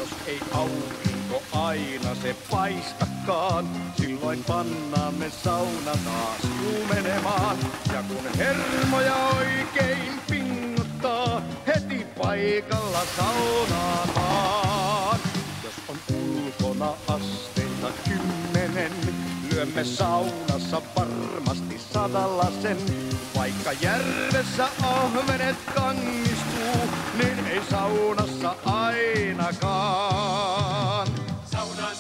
jos ei aurinko aina se paistakaan, silloin pannaan me sauna taas kuumenemaan. Ja kun hermoja oikein pingottaa, heti paikalla saunaamaan. Jos on ulkona asteita 10, lyömme saunassa varmasti 100 sen. Vaikka järvessä ahvenet kangistuu, niin ei saunassa ainakaan.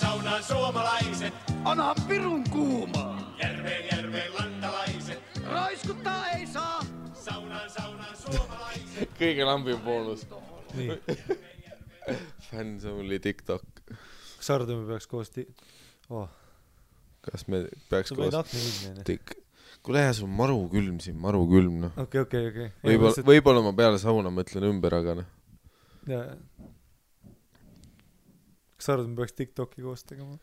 Saunaan suomalaiset, Onhan pirun kuumaa. järveen lantalaiset. Raiskuttaa ei saa. Saunaan suomalaiset. Kõige lambim boonus. Nii. Fans only TikTok. Kas sa arvad, me peaks koos Kas me peaks Sul koos võid akna ilmne. Kuule jah, sul on maru külm siin, maru külm noh. Okei. Võib-olla ma peale sauna mõtlen ümber, aga noh. Kas sa arvad, me peaks TikToki koos tegema?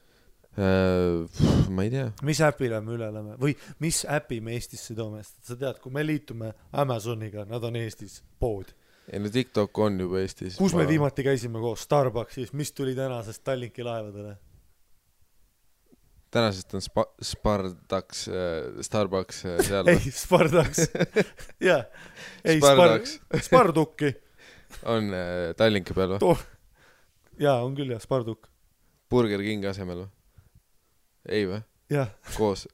Ma ei tea. Mis äpile me üle oleme? Või mis äpi me Eestisse toome? Sa tead, kui me liitume Amazoniga, nad on Eestis pood. Ei no TikTok on juba Eestis. Kus me viimati käisime koos? Starbucksis. Mis tuli tänasest Tallinki laevadele? Tänasest on Starbucks seal. Ei, Spardaks. Jaa. Ei, Spardukki. On Tallinki peal või? Jaa, on küll jah, Sparduk. Burger King asemel või? Ei või? Jah. Koos.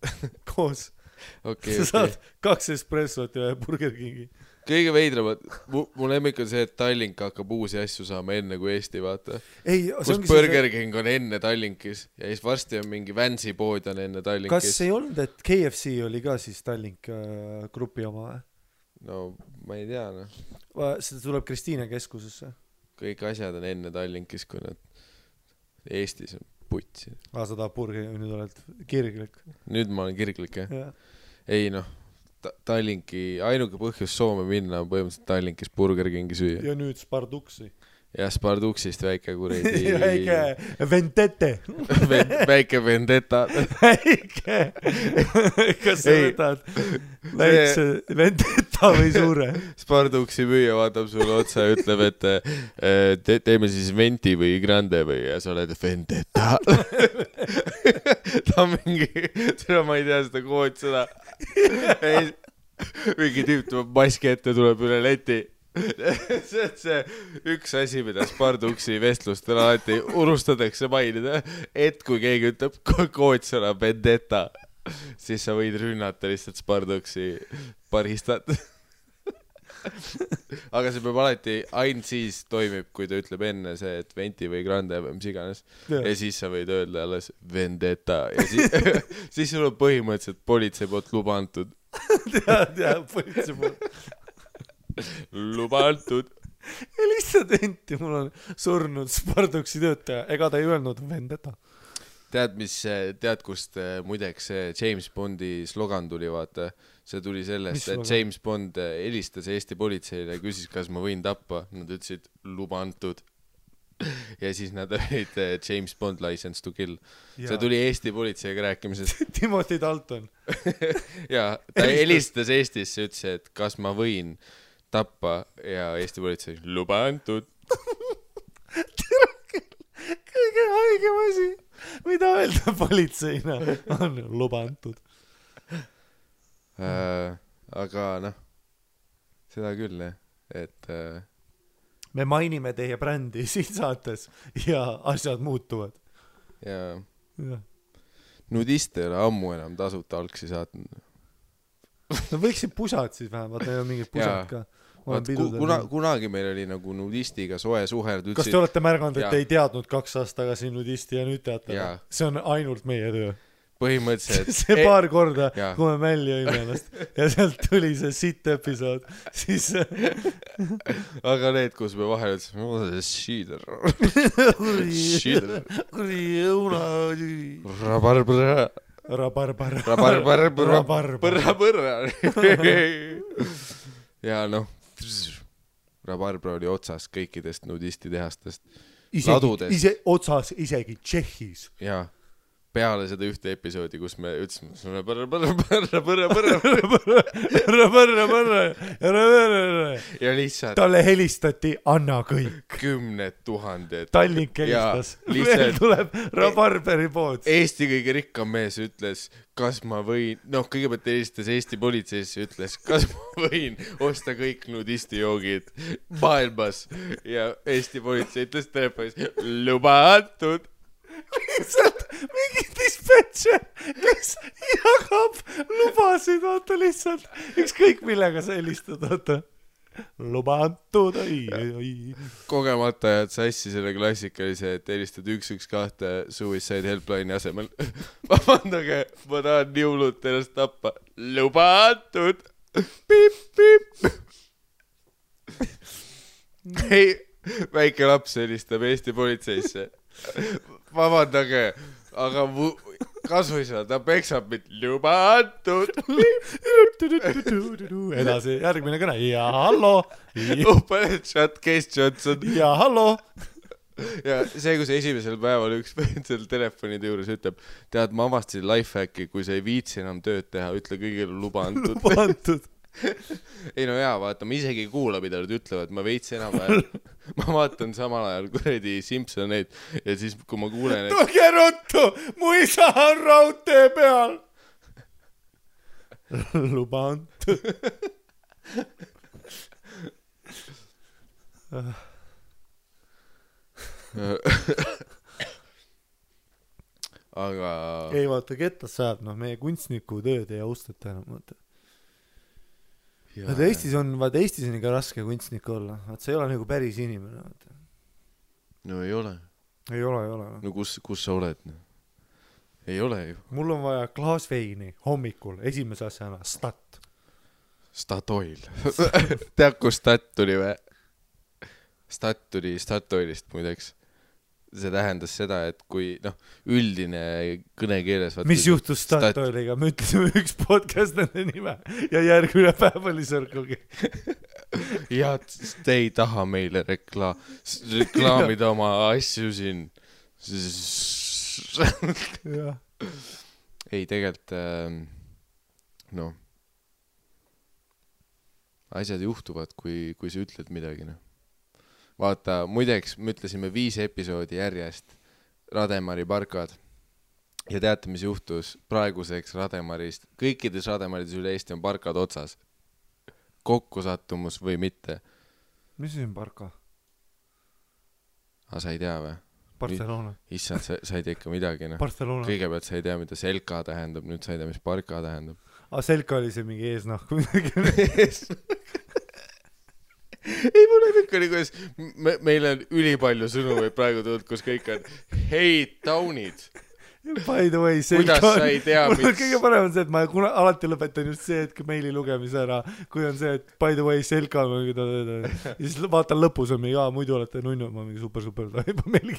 Sa saad 2 espressot ja Burger Kingi. Kõige veidramad, mu lemmik on see, et Tallink hakkab uusi asju saama enne kui Eesti, vaata. Kus Burger King on enne Tallinkis ja siis varsti on mingi Vansi pood on enne Tallinkis. Kas ei olnud, et KFC oli ka siis Tallink grupi oma või? No ma ei tea, noh. Seda tuleb Kristiine keskusesse. Kõik asjad on enne Tallinkis, kui nad Eestis on putsi. Sa tahab Burger, nüüd oled kirglik. Nüüd ma olen kirglik, jah? Ja. Ei noh. Tallinki, ainuke põhjus Soome minna on põhimõtteliselt Tallinkis Burger Kingi süüa. Ja nüüd Sparduksi. Ja Sparduksist väike kuredi... Väike Vendette. Väike Vendetta. Väike. Kas sa võtad väikse Vendetta või suure? Sparduksi müüja vaatab sulle otsa ja ütleb, et teeme siis Venti või Grande või ja sa oled Vendetta. Ta on mingi... Ma ei tea seda koodsõna. Mingi tüüp tuleb maski ette, tuleb üle leti. See on see üks asi, mida Sparduksi vestlustel alati unustatakse mainida, et kui keegi ütleb koodsõna Vendetta, siis sa võid rünnata lihtsalt Sparduksi baristat. Aga see peab alati ainult siis toimib, kui ta ütleb enne see, et Venti või Grande või mis iganes. Ja siis sa võid öelda alles Vendetta ja siis sul on põhimõtteliselt politsei poolt luba antud. Tead, politsei poolt. Luba antud. Ja lihtsalt Venti, mul on surnud Sparduksi töötaja. Ega ta ei öelnud Vendetta. Tead, kust muideks James Bondi slogan tuli, vaata. See tuli sellest, et James Bond helistas Eesti politseile ja küsis, kas ma võin tappa. Nad ütlesid, luba antud. Ja siis nad olid James Bond License to Kill. See tuli Eesti politseiga rääkimisest. Timothy Dalton. Ja ta helistas Eestisse, ütles, et kas ma võin tappa ja Eesti politsei luba antud. Kõige haigem asi, mida öelda politseina, on luba antud. Aga noh, seda küll, et me mainime teie brändi siin saates ja asjad muutuvad. Ja nudiste ei ole ammu enam tasuta algsi saatnud. No võiksid pusad siis vähemalt, neil on mingid pusad ka. Kunagi meil oli nagu nudistiga soe suherd. Kas te olete märganud, et ei teadnud 2 aastat tagasi nudisti ja nüüd teate? See on ainult meie töö. Põhimõtteliselt. See paar korda, kui me mälli õime ennast ja sealt tuli see sitt episood, siis... Aga need, kus me vahel ütlesime, šiider. Kuri õuna... Rabarbar. Ja noh, Rabarbar oli otsas kõikidest nudisti tehastest. Ise otsas isegi Tšehhis. Jaa. peale seda ühte episoodi, kus me ütlesime ja lihtsalt talle helistati Anna kõik. 10 000 Tallink helistas. Veel tuleb Barberi pood. Eesti kõige rikkam mees ütles, kas ma võin, kõigepealt helistas Eesti politseisse, ütles, kas ma võin osta kõik nudistijoogid maailmas ja Eesti politsei ütles telefonis, luba antud. Lihtsalt mingi dispatcher, kes jagab lubasid, vaata lihtsalt ükskõik millega sa helistad, vaata luba antud, kogemata jääd sassi selle klassikalise, et helistad 112 suicide helpline'i asemel. Vabandage, ma tahan nii hullult ennast tappa. Luba antud. Pip, pip. Ei, väike laps helistab Eesti politseisse. Vabandage, aga kasuisa, ta peksab mind. Luba antud. Edasi, järgmine kõne. Ja hallo. Pane chat, Case Johnson. Ja hallo. Ja see, kus esimesel päeval üks seal telefonide juures ütleb, tead, ma avastasin lifehacki, kui sa ei viitsi enam tööd teha, ütle kõigile luba antud. Luba antud. Ei no jaa, vaata, ma isegi ei kuula, mida nad ütlevad, ma veits enam ajal. Ma vaatan samal ajal kuradi Simpsoneid ja siis, kui ma kuulen, et... Tulge ruttu, mu isa on raudtee peal. Luba antud. Aga... Ei vaata, kettas saab, meie kunstniku tööd ei austata enam, vaata. Eestis on ikka raske kunstnik olla. See ei ole nagu päris inimene. Vaata. No ei ole. Ei ole. No kus sa oled? Ei ole ju. Mul on vaja klaas veini hommikul, esimese asjana Stat. Statoil. Tead, kus Stat tuli või? Stat tuli Statoilist muideks. See tähendas seda, et kui üldine kõnekeeles mis juhtus Statoiliga? Me ütlesime üks podcast nende nime ja järgmine päev oli Circle K. Ja te ei taha meile reklaamida oma asju siin. Ei, tegelikult asjad juhtuvad, kui sa ütled midagi. Vaata, muideks, me ütlesime 5 episoodi järjest Rademari parkad ja teate, mis juhtus praeguseks Rademarist. Kõikides Rademarides üle Eesti on parkad otsas. Kokkusattumus või mitte. Mis on parka? Sa ei tea või? Barcelona. Issand, sa ei tea ikka midagi. Barcelona. Kõigepealt sa ei tea, mida selka tähendab, nüüd sa ei tea, mis parka tähendab. Selka oli see mingi eesnahku midagi. Ei, mul on ikka nii, kuidas meil on ülipalju sõnu või praegu tulnud, kus kõik on hei, taunid. By the way, selka kuidas sa ei tea, mul on kõige parem on see, et ma alati lõpetan just see hetk meili lugemise ära, kui on see, et by the way, selka ja siis vaatan lõpus on mingi, muidu olete nunnu, ma mingi super, meili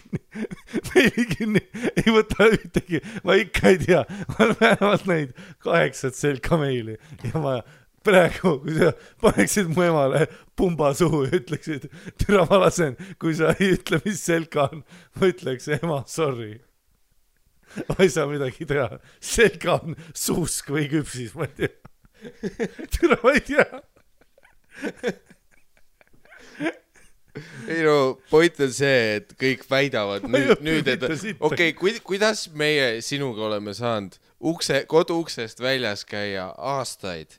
kinni, ei võta ühtegi, ma ikka ei tea, ma olen vähemalt neid 8 selka meili ja ma praegu, kui sa paneksid mu emale pumba suhu ja ütleksid, türa ma lasen, kui sa ei ütle, mis selka on, ma ütleks, ema, sorry. Ma ei saa midagi teha. Selka on suusk või küpsis, ma ei tea. Türa ma ei tea. Ei no, point on see, et kõik väidavad nüüd et okei, kuidas meie sinuga oleme saanud kodu uksest väljas käia aastaid,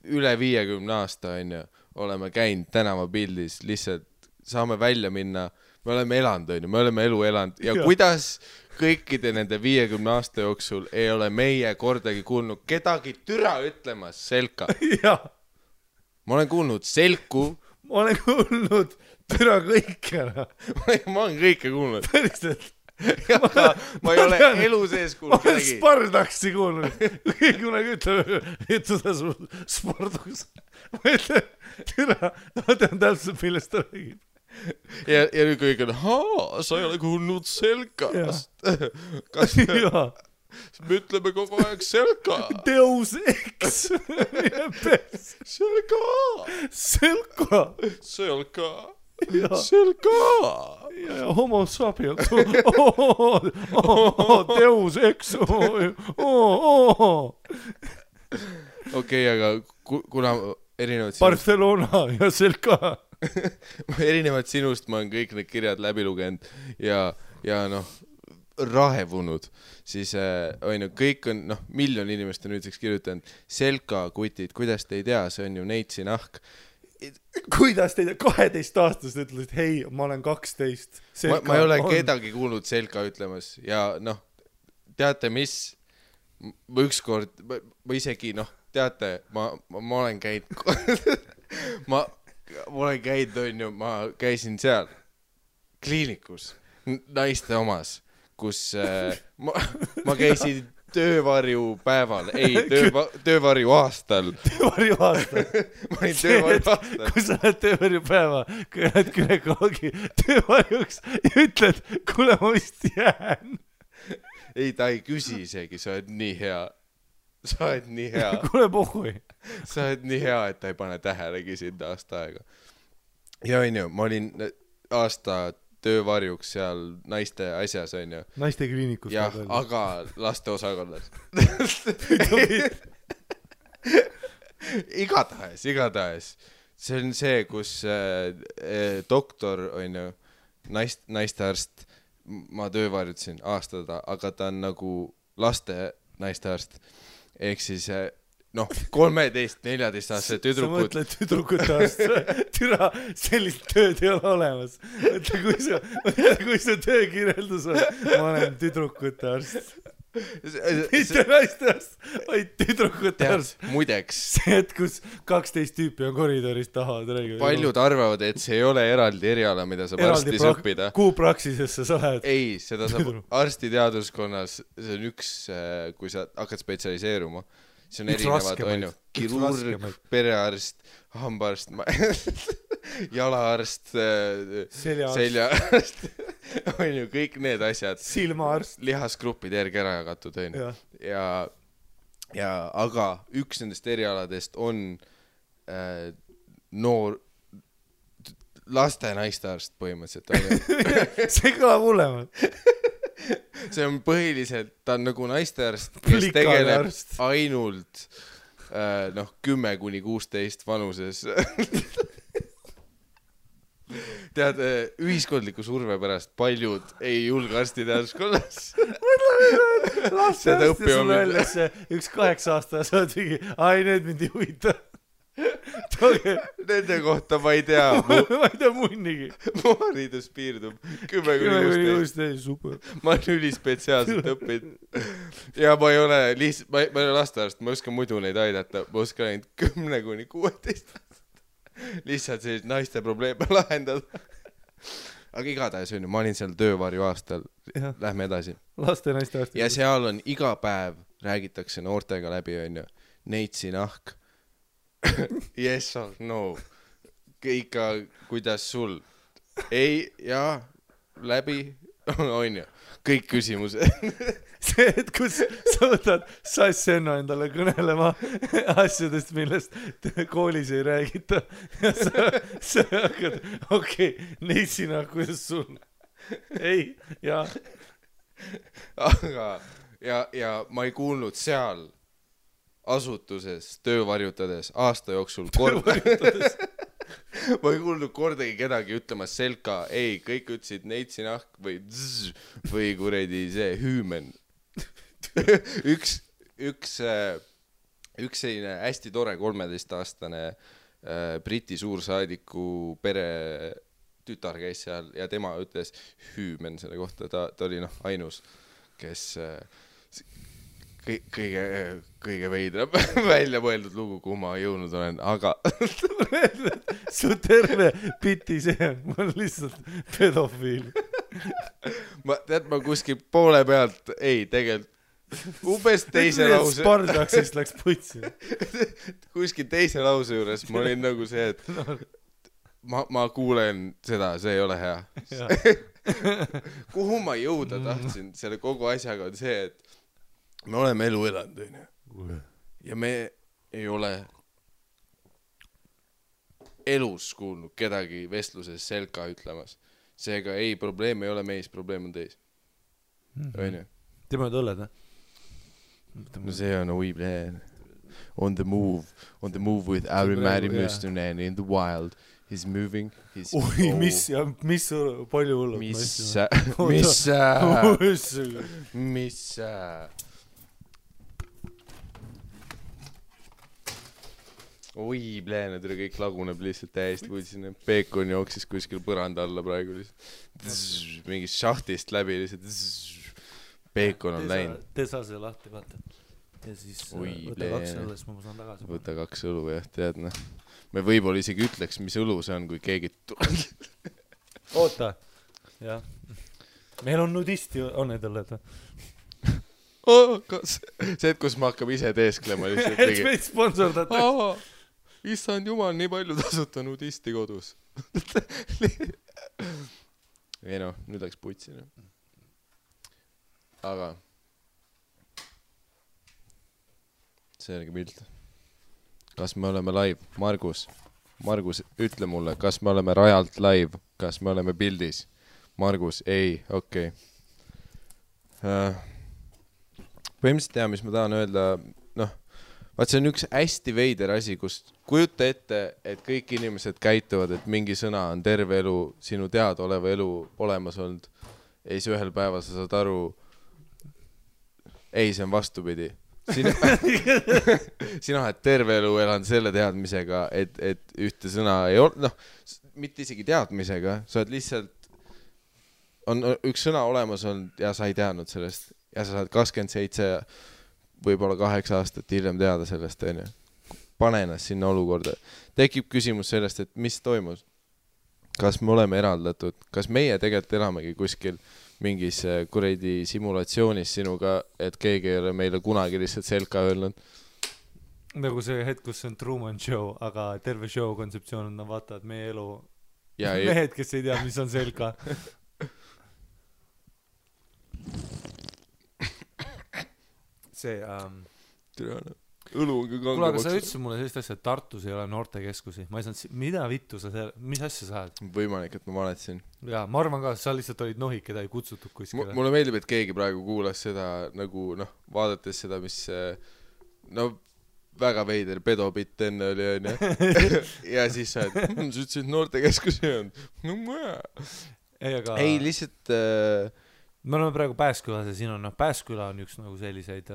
üle 50 aasta on ju, oleme käinud tänavapildis, lihtsalt saame välja minna, me oleme elanud, me oleme elu elanud ja kuidas kõikide nende 50 aasta jooksul ei ole meie kordagi kuulnud kedagi türa ütlemas selka. Ma olen kuulnud selku. Ma olen kuulnud türa kõike. Ma olen kõike kuulnud. Päriselt. Ma ei ole elu sees kuulnud kedagi. Ma olen Spardaksi kuulnud. Kui kunagi ütleb, et seda Spardakus. Ma ütlen, türa, ma tean täpselt, millest ta räägib. Ja nüüd kõik on, sa ei ole kuulnud selkast. Kas me ütleme kogu aeg selka? Deus Ex. Selka. Selka. Selka. Selka! Ja homo sapiens. Deus ex. Okei, aga kuna erinevad Barcelona ja Selka. erinevalt sinust ma olen kõik need kirjad läbi lugenud ja noh, rahevunud, siis on ju, kõik on, noh, miljon inimest on nüüdseks kirjutanud Selka kutid, kuidas te ei tea, see on ju Neitsi nahk. Kuidas te ei tea, 12-aastased ütlesid, hei, ma olen 12. Ma ei ole kedagi kuulnud Selka ütlemas ja noh, teate mis, ma ükskord, ma isegi, noh, teate, ma olen käinud ma olen käinud, on ju, ma käisin seal kliinikus, naiste omas, kus ma käisin töövarjupäeval, ei, töövarju aastal. Töövarju aastal. Ma olin töövarju aastal. Kui sa oled töövarjupäeva, kui oled günekoloogi töövarjuks ja ütled, kuule, ma vist jään. Ei, ta ei küsi isegi, sa oled nii hea. Sa oled nii hea. Kuule, pohhui. Sa oled nii hea, et ta ei pane tähelegi sind aasta aega. Ja on ju, ma olin aasta töövarjuks seal naiste asjas, on ju. Naiste kliinikus. Jah, aga laste osakonnas. Igatahes. See on see, kus doktor, on ju, naistearst, ma töövarjutasin aastada, aga ta on nagu laste naistearst. Ehk siis, noh, 13-14-aastase tüdrukud. Sa mõtled tüdrukute arst. Türa, sellist tööd ei ole olemas. Kui su töökirjeldus on, ma olen tüdrukute arst. Mitte naiste arst, vaid tüdrukute arst. Muideks. See, et kus 12 tüüpi on koridoris taha. Paljud arvavad, et see ei ole eraldi eriala, mida saab arstis õppida. Kuhu praksisesse sa lähed? Ei, seda saab arstiteaduskonnas. See on üks, kui sa hakkad spetsialiseeruma. See on erinevad, on ju, kirurg, perearst, hambaarst, jalaarst, seljaarst, on ju, kõik need asjad. Silmaarst. Lihasgrupid järgi ära jagatud, on ju. Ja aga üks nendest erialadest on noor, laste naistearst põhimõtteliselt, on ju. See kõlab hullemalt. See on põhiliselt, ta on nagu naistearst, kes tegeleb ainult 10-16 vanuses. Tead, ühiskondliku surve pärast paljud ei julge arstiteaduskonnas. Laste arst ja sulle öeldes üks 8-aastane saad mingi, ai, need mind ei huvita. Nende kohta ma ei tea. Ma ei tea munnigi. Mu haridus piirdub 10-16. Super. Ma olen ülispetsiaalselt õppinud. Ja ma ei ole lastearst, ma oskan muidu neid aidata. Ma oskan ainult 10-16. Lihtsalt sellist naiste probleeme lahendada. Aga igatahes on ju, ma olin seal töövarju aastal. Lähme edasi. Laste naiste arst. Ja seal on iga päev räägitakse noortega läbi, on ju. Neitsi nahk. Yes or no. Ikka, kuidas sul? Ei, jaa, läbi, on ju. Kõik küsimused. See, et kus sa võtad Sassenno endale kõnelema asjadest, millest koolis ei räägita. Ja sa hakkad, okei, neitsina, kuidas sul? Ei, jaa. Aga, ja ma ei kuulnud seal asutuses töövarjutades aasta jooksul ma ei kuulnud kordagi kedagi ütlemas Selka, ei, kõik ütlesid neitsi nahk või zzz, või kuredi see hüümen. üks selline hästi tore 13-aastane Briti suursaadiku pere tütar käis seal ja tema ütles hüümen selle kohta, ta oli ainus, kes kõige veidram välja mõeldud lugu, kuhu ma jõudnud olen, aga su terve piti see on, ma olen lihtsalt pedofiil. ma kuskil poole pealt, ei, tegelikult umbes teise lause Spartaksist läks putsi. kuskil teise lause juures ma olin nagu see, et ma kuulen seda, see ei ole hea. Kuhu ma jõuda tahtsin selle kogu asjaga on see, et me oleme elu elanud, on ju. Ja me ei ole elus kuulnud kedagi vestluses selka ütlemas. Seega ei, probleem ei ole meis, probleem on teis. Õnne. Tema oled õlled, No see on Weeblen. On the move with Ari Mari Müstonen in the wild. He's moving. Oi, mis palju hullud. Mis Oi, plääned üle kõik laguneb lihtsalt täiesti kuulsin. Peekon jooksis kuskil põranda alla praegu lihtsalt. Mingist šahtist läbi lihtsalt. Peekon on läinud. Tee saa see lahti, vaata. Ja siis võta 2 õlle, siis ma saan tagasi. Võta 2 õlu, jah, tead, noh. Me võib-olla isegi ütleks, mis õlu see on, kui keegi Oota. Jah. Meil on nudisti, on need õlled. See, et kus ma hakkab ise teesklema lihtsalt. Et meid sponsordatakse. Issand jumal, nii palju tasuta nudisti kodus. Ei noh, nüüd läks putsi. Aga selge pilt. Kas me oleme live? Margus, ütle mulle, kas me oleme rajalt live? Kas me oleme pildis? Margus, ei, okei. Põhimõtteliselt tea, mis ma tahan öelda, noh, vaat see on üks hästi veider asi, kus kujuta ette, et kõik inimesed käituvad, et mingi sõna on terve elu, sinu teadaoleva elu olemas olnud. Ei, see ühel päeval sa saad aru, ei, see on vastupidi. Sina oled terve elu elanud selle teadmisega, et ühte sõna ei ole, noh, mitte isegi teadmisega, sa oled lihtsalt, on üks sõna olemas olnud ja sa ei teadnud sellest. Ja sa saad 27, võib-olla 8 aastat hiljem teada sellest, on ju. Pane ennast sinna olukorda. Tekib küsimus sellest, et mis toimus? Kas me oleme eraldatud? Kas meie tegelikult elamegi kuskil mingis kuradi simulatsioonis sinuga, et keegi ei ole meile kunagi lihtsalt selka öelnud? Nagu see hetk, kus on Truman Show, aga terve show kontseptsioon on, vaata, et meie elu ja mehed, kes ei tea, mis on selka. See õlu on ka kuule, aga sa ütlesid mulle sellist asja, et Tartus ei ole noortekeskusi. Ma ei saanud, mida vittu sa seal, mis asja sa oled? Võimalik, et ma valetasin. Jaa, ma arvan ka, sa lihtsalt olid nohik, keda ei kutsutud kuskile. Mulle meeldib, et keegi praegu kuulas seda nagu, noh, vaadates seda, mis no väga veider pedobitt enne oli, on ju. Ja siis sa ütlesid noortekeskusi on. No ma ei, lihtsalt me oleme praegu Pääskülas ja siin on, Pääsküla on üks nagu selliseid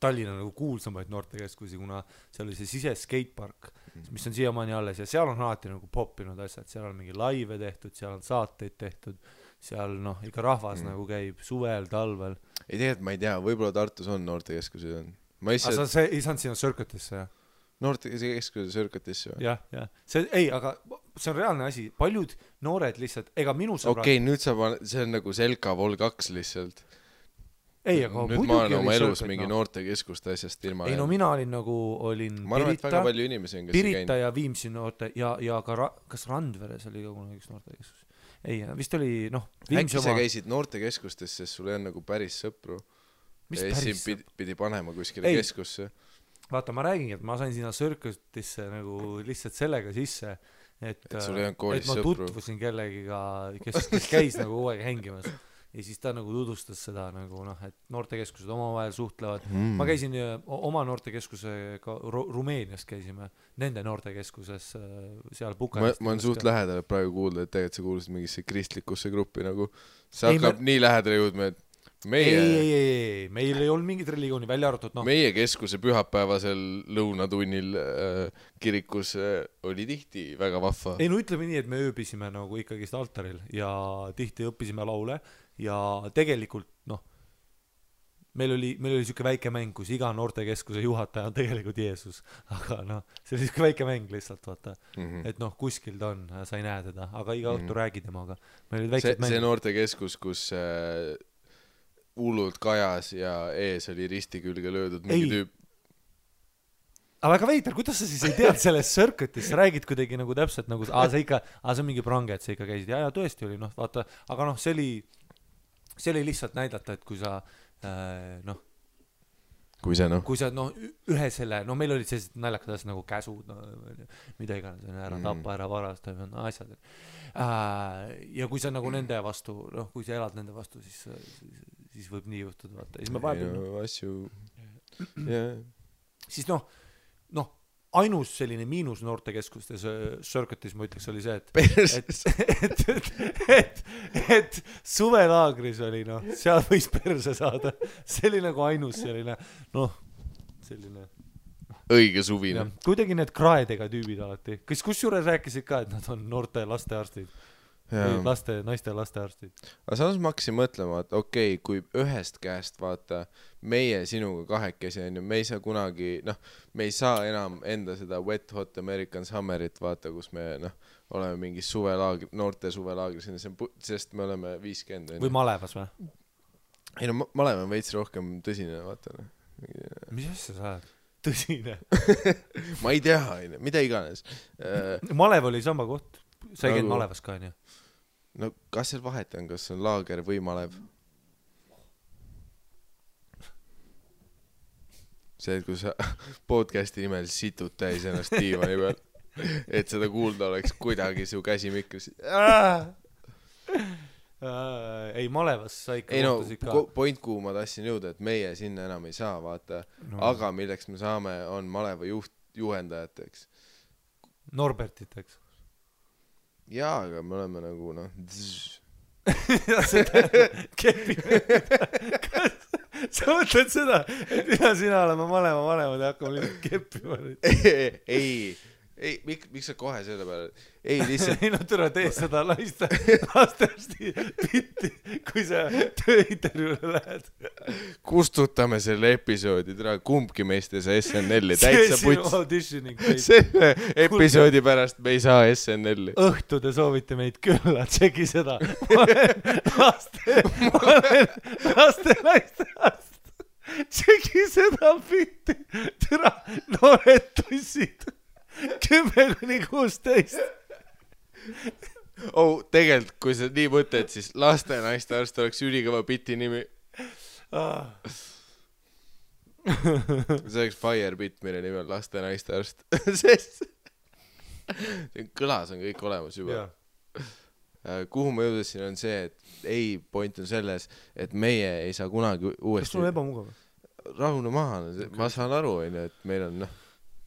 Tallinna nagu kuulsamaid noortekeskusi, kuna seal oli see sise skatepark, mis on siiamaani alles ja seal on alati nagu poppinud asjad, seal on mingi laive tehtud, seal on saateid tehtud, seal noh, ikka rahvas nagu käib suvel, talvel. Ei tegelikult ma ei tea, võib-olla Tartus on noortekeskusid on. Aga sa ei saanud sinna Circuitisse, jah? Noortekeskuse Circuitisse või? Jah. See, ei, aga see on reaalne asi. Paljud noored lihtsalt, ega minu sõbrad... Okei, nüüd see on nagu Selka Vol 2 lihtsalt. Ei, aga nüüd ma olen oma elus mingi noortekeskuste asjast ilma. Ei, no mina olin nagu, ma arvan, et väga palju inimesi on, kes Pirita ja Viimsi noorte ja ka kas Randveres oli ka kunagi üks noortekeskus. Ei, vist oli, noh, Viimsi oma... Äkki sa käisid noortekeskustes, sest sul on nagu päris sõpru. Ja siin pidi panema kuskile keskusse. Vaata, ma räägingi, et ma sain sinna Circuitisse nagu lihtsalt sellega sisse, et ma tutvusin kellegiga, kes käis nagu kogu aeg hängimas. Ja siis ta nagu tutvustas seda nagu, noh, et noortekeskused omavahel suhtlevad. Ma käisin oma noortekeskusega Rumeenias käisime, nende noortekeskuses seal Bukarestis. Ma on suht lähedal praegu kuulda, et tegelikult sa kuulusid mingisse kristlikusse gruppi nagu. See hakkab nii lähedale jõudma, et ei, meil ei olnud mingit religiooni välja arvatud, noh. Meie keskuse pühapäevasel lõunatunnil kirikus oli tihti väga vahva. Ei, no ütleme nii, et me ööbisime nagu ikkagist altaril ja tihti õppisime laule ja tegelikult, noh, meil oli siuke väike mäng, kus iga noortekeskuse juhataja on tegelikult Jeesus, aga noh, see oli siuke väike mäng lihtsalt, vaata, et noh, kuskil ta on, sa ei näe teda, aga iga õhtu räägi temaga. See noortekeskus, kus hullult kajas ja ees oli risti külge löödud mingi tüüp. Aga väga veider, kuidas sa siis ei tead selles Circuitis, sa räägid kuidagi nagu täpselt nagu, see on mingi prange, et sa ikka käisid, ja tõesti oli, noh, vaata, aga noh, see oli lihtsalt näidata, et kui sa, noh, kui sa noh ühe selle, meil olid sellised naljakad asjad nagu käsud, mida iganes, ära tapa, ära varasta, asjad. Ja kui sa nagu nende vastu, kui sa elad nende vastu, siis võib nii juhtuda, vaata. Siis me vahepeal asju siis ainus selline miinus noortekeskustes Circuitis ma ütleks oli see, et suvelaagris oli seal võis perse saada, see oli nagu ainus selline selline õige suvine. Kuidagi need kraedega tüübid alati, kes kusjuures rääkisid ka, et nad on noorte lastearstid, naiste lastearstid. Aga samas ma hakkasin mõtlema, et okei, kui ühest käest vaata meie sinuga kahekesi on ju, me ei saa kunagi, me ei saa enam enda seda Wet Hot American Summerit vaata, kus me oleme mingis suvelaagri, noorte suvelaagris, sest me oleme 50. Või Malevas või? Ei Malev on veits rohkem tõsine, vaata. Mis asja sa oled? Tõsine? Ma ei tea, mida iganes. Malev oli sama koht, sa ei käinud Malevas ka, on ju? No kas seal vahet on, kas on laager või Malev? See, et kui sa podcasti nimel situd täis ennast diivani peal, et seda kuulda oleks kuidagi su käsi mikris. Ei, Malevas sa ikka kohtasid ka. Point kuhu ma tahtsin jõuda, et meie sinna enam ei saa, vaata. Aga milleks me saame, on Maleva juhendajateks. Norbertiteks. Jaa, aga me oleme nagu sa mõtled seda, et mida sina oleme Maleva vanemad ja hakkame lihtsalt keppima nüüd? Ei, miks sa kohe selle peale? Ei, lihtsalt... Ei, türa tee seda lastearsti pitti, kui sa tööintervjuule lähed. Kustutame selle episoodi, kumbki meist ei saa SNL-i täitsa puts. Selle episoodi pärast me ei saa SNL-i. Õhtu te soovite meid külla, tšeki seda. Laste naiste. Tšeki seda pitti. Türa, noored tussid. 10-16. Tegelikult, kui sa nii mõtled, siis laste naiste arst oleks ülikõva biti nimi. See oleks Fire Bit, mille nimi on laste naiste arst. Sest kõlas on kõik olemas juba. Kuhu ma jõudasin on see, et ei, point on selles, et meie ei saa kunagi uuesti... Kas sul on ebamugav? Rahune maha, ma saan aru, et meil on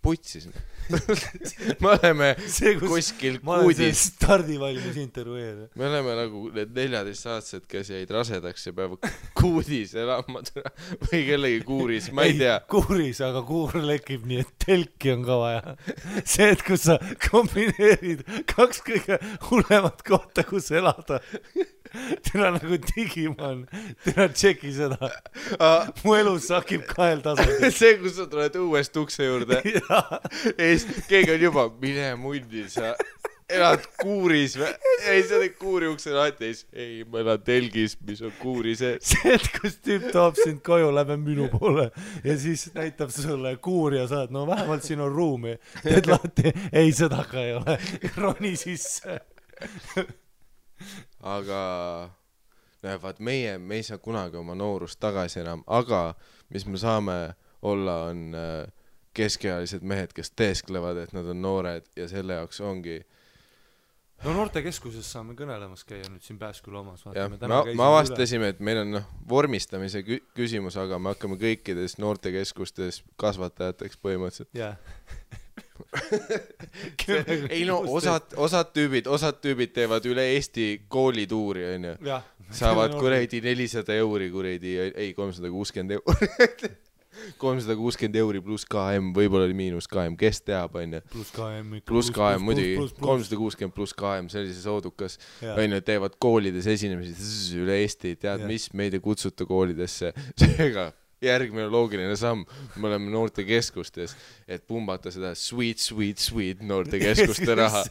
putsis. Me oleme kuskil kuudis. Ma olen see stardivalmis intervjueerida. Me oleme nagu need 14-aastased, kes jäid rasedaks ja peavad kuudis elama või kellegi kuuris, ma ei tea. Kuuris, aga kuur lekib nii, et telki on ka vaja. See, et kus sa kombineerid 2 kõige hullemat kohta, kus elada. Tina nagu Digimon. Tina tšeki seda. Mu elu sakib 2 tasandil. See, kus sa tuled uuest ukse juurde. Keegi on juba, mine mundi, sa elad kuuris või? Ei, sa oled kuuri ukse lahtis. Ei, ma elan telgis, mis on kuuri sees. See, et kus tüüp toob sind koju, läbi minu poole ja siis näitab sulle kuuri ja saad, vähemalt siin on ruumi. Teed lahti, ei, seda ka ei ole. Roni sisse. Aga vaat meie ei saa kunagi oma noorust tagasi enam, aga mis me saame olla on keskealised mehed, kes teesklevad, et nad on noored ja selle jaoks ongi noortekeskuses saame kõnelemas käia nüüd siin Pääsküla omas. Me avastasime, et meil on vormistamise küsimus, aga me hakkame kõikides noortekeskustes kasvatajateks põhimõtteliselt. Ei osad tüübid teevad üle Eesti koolituuri, on ju. Saavad kuredi 400 euri, kuredi, ei 360 euri. 360 euri pluss KM, võib-olla oli miinus KM, kes teab, on ju. Pluss KM, muidugi 360 pluss KM, sellises oodukas, on ju, teevad koolides esinemisi üle Eesti, tead, mis meid ei kutsuta koolidesse. Seega järgmine loogiline samm, me oleme noortekeskustes, et pumbata seda sweet noortekeskuste raha.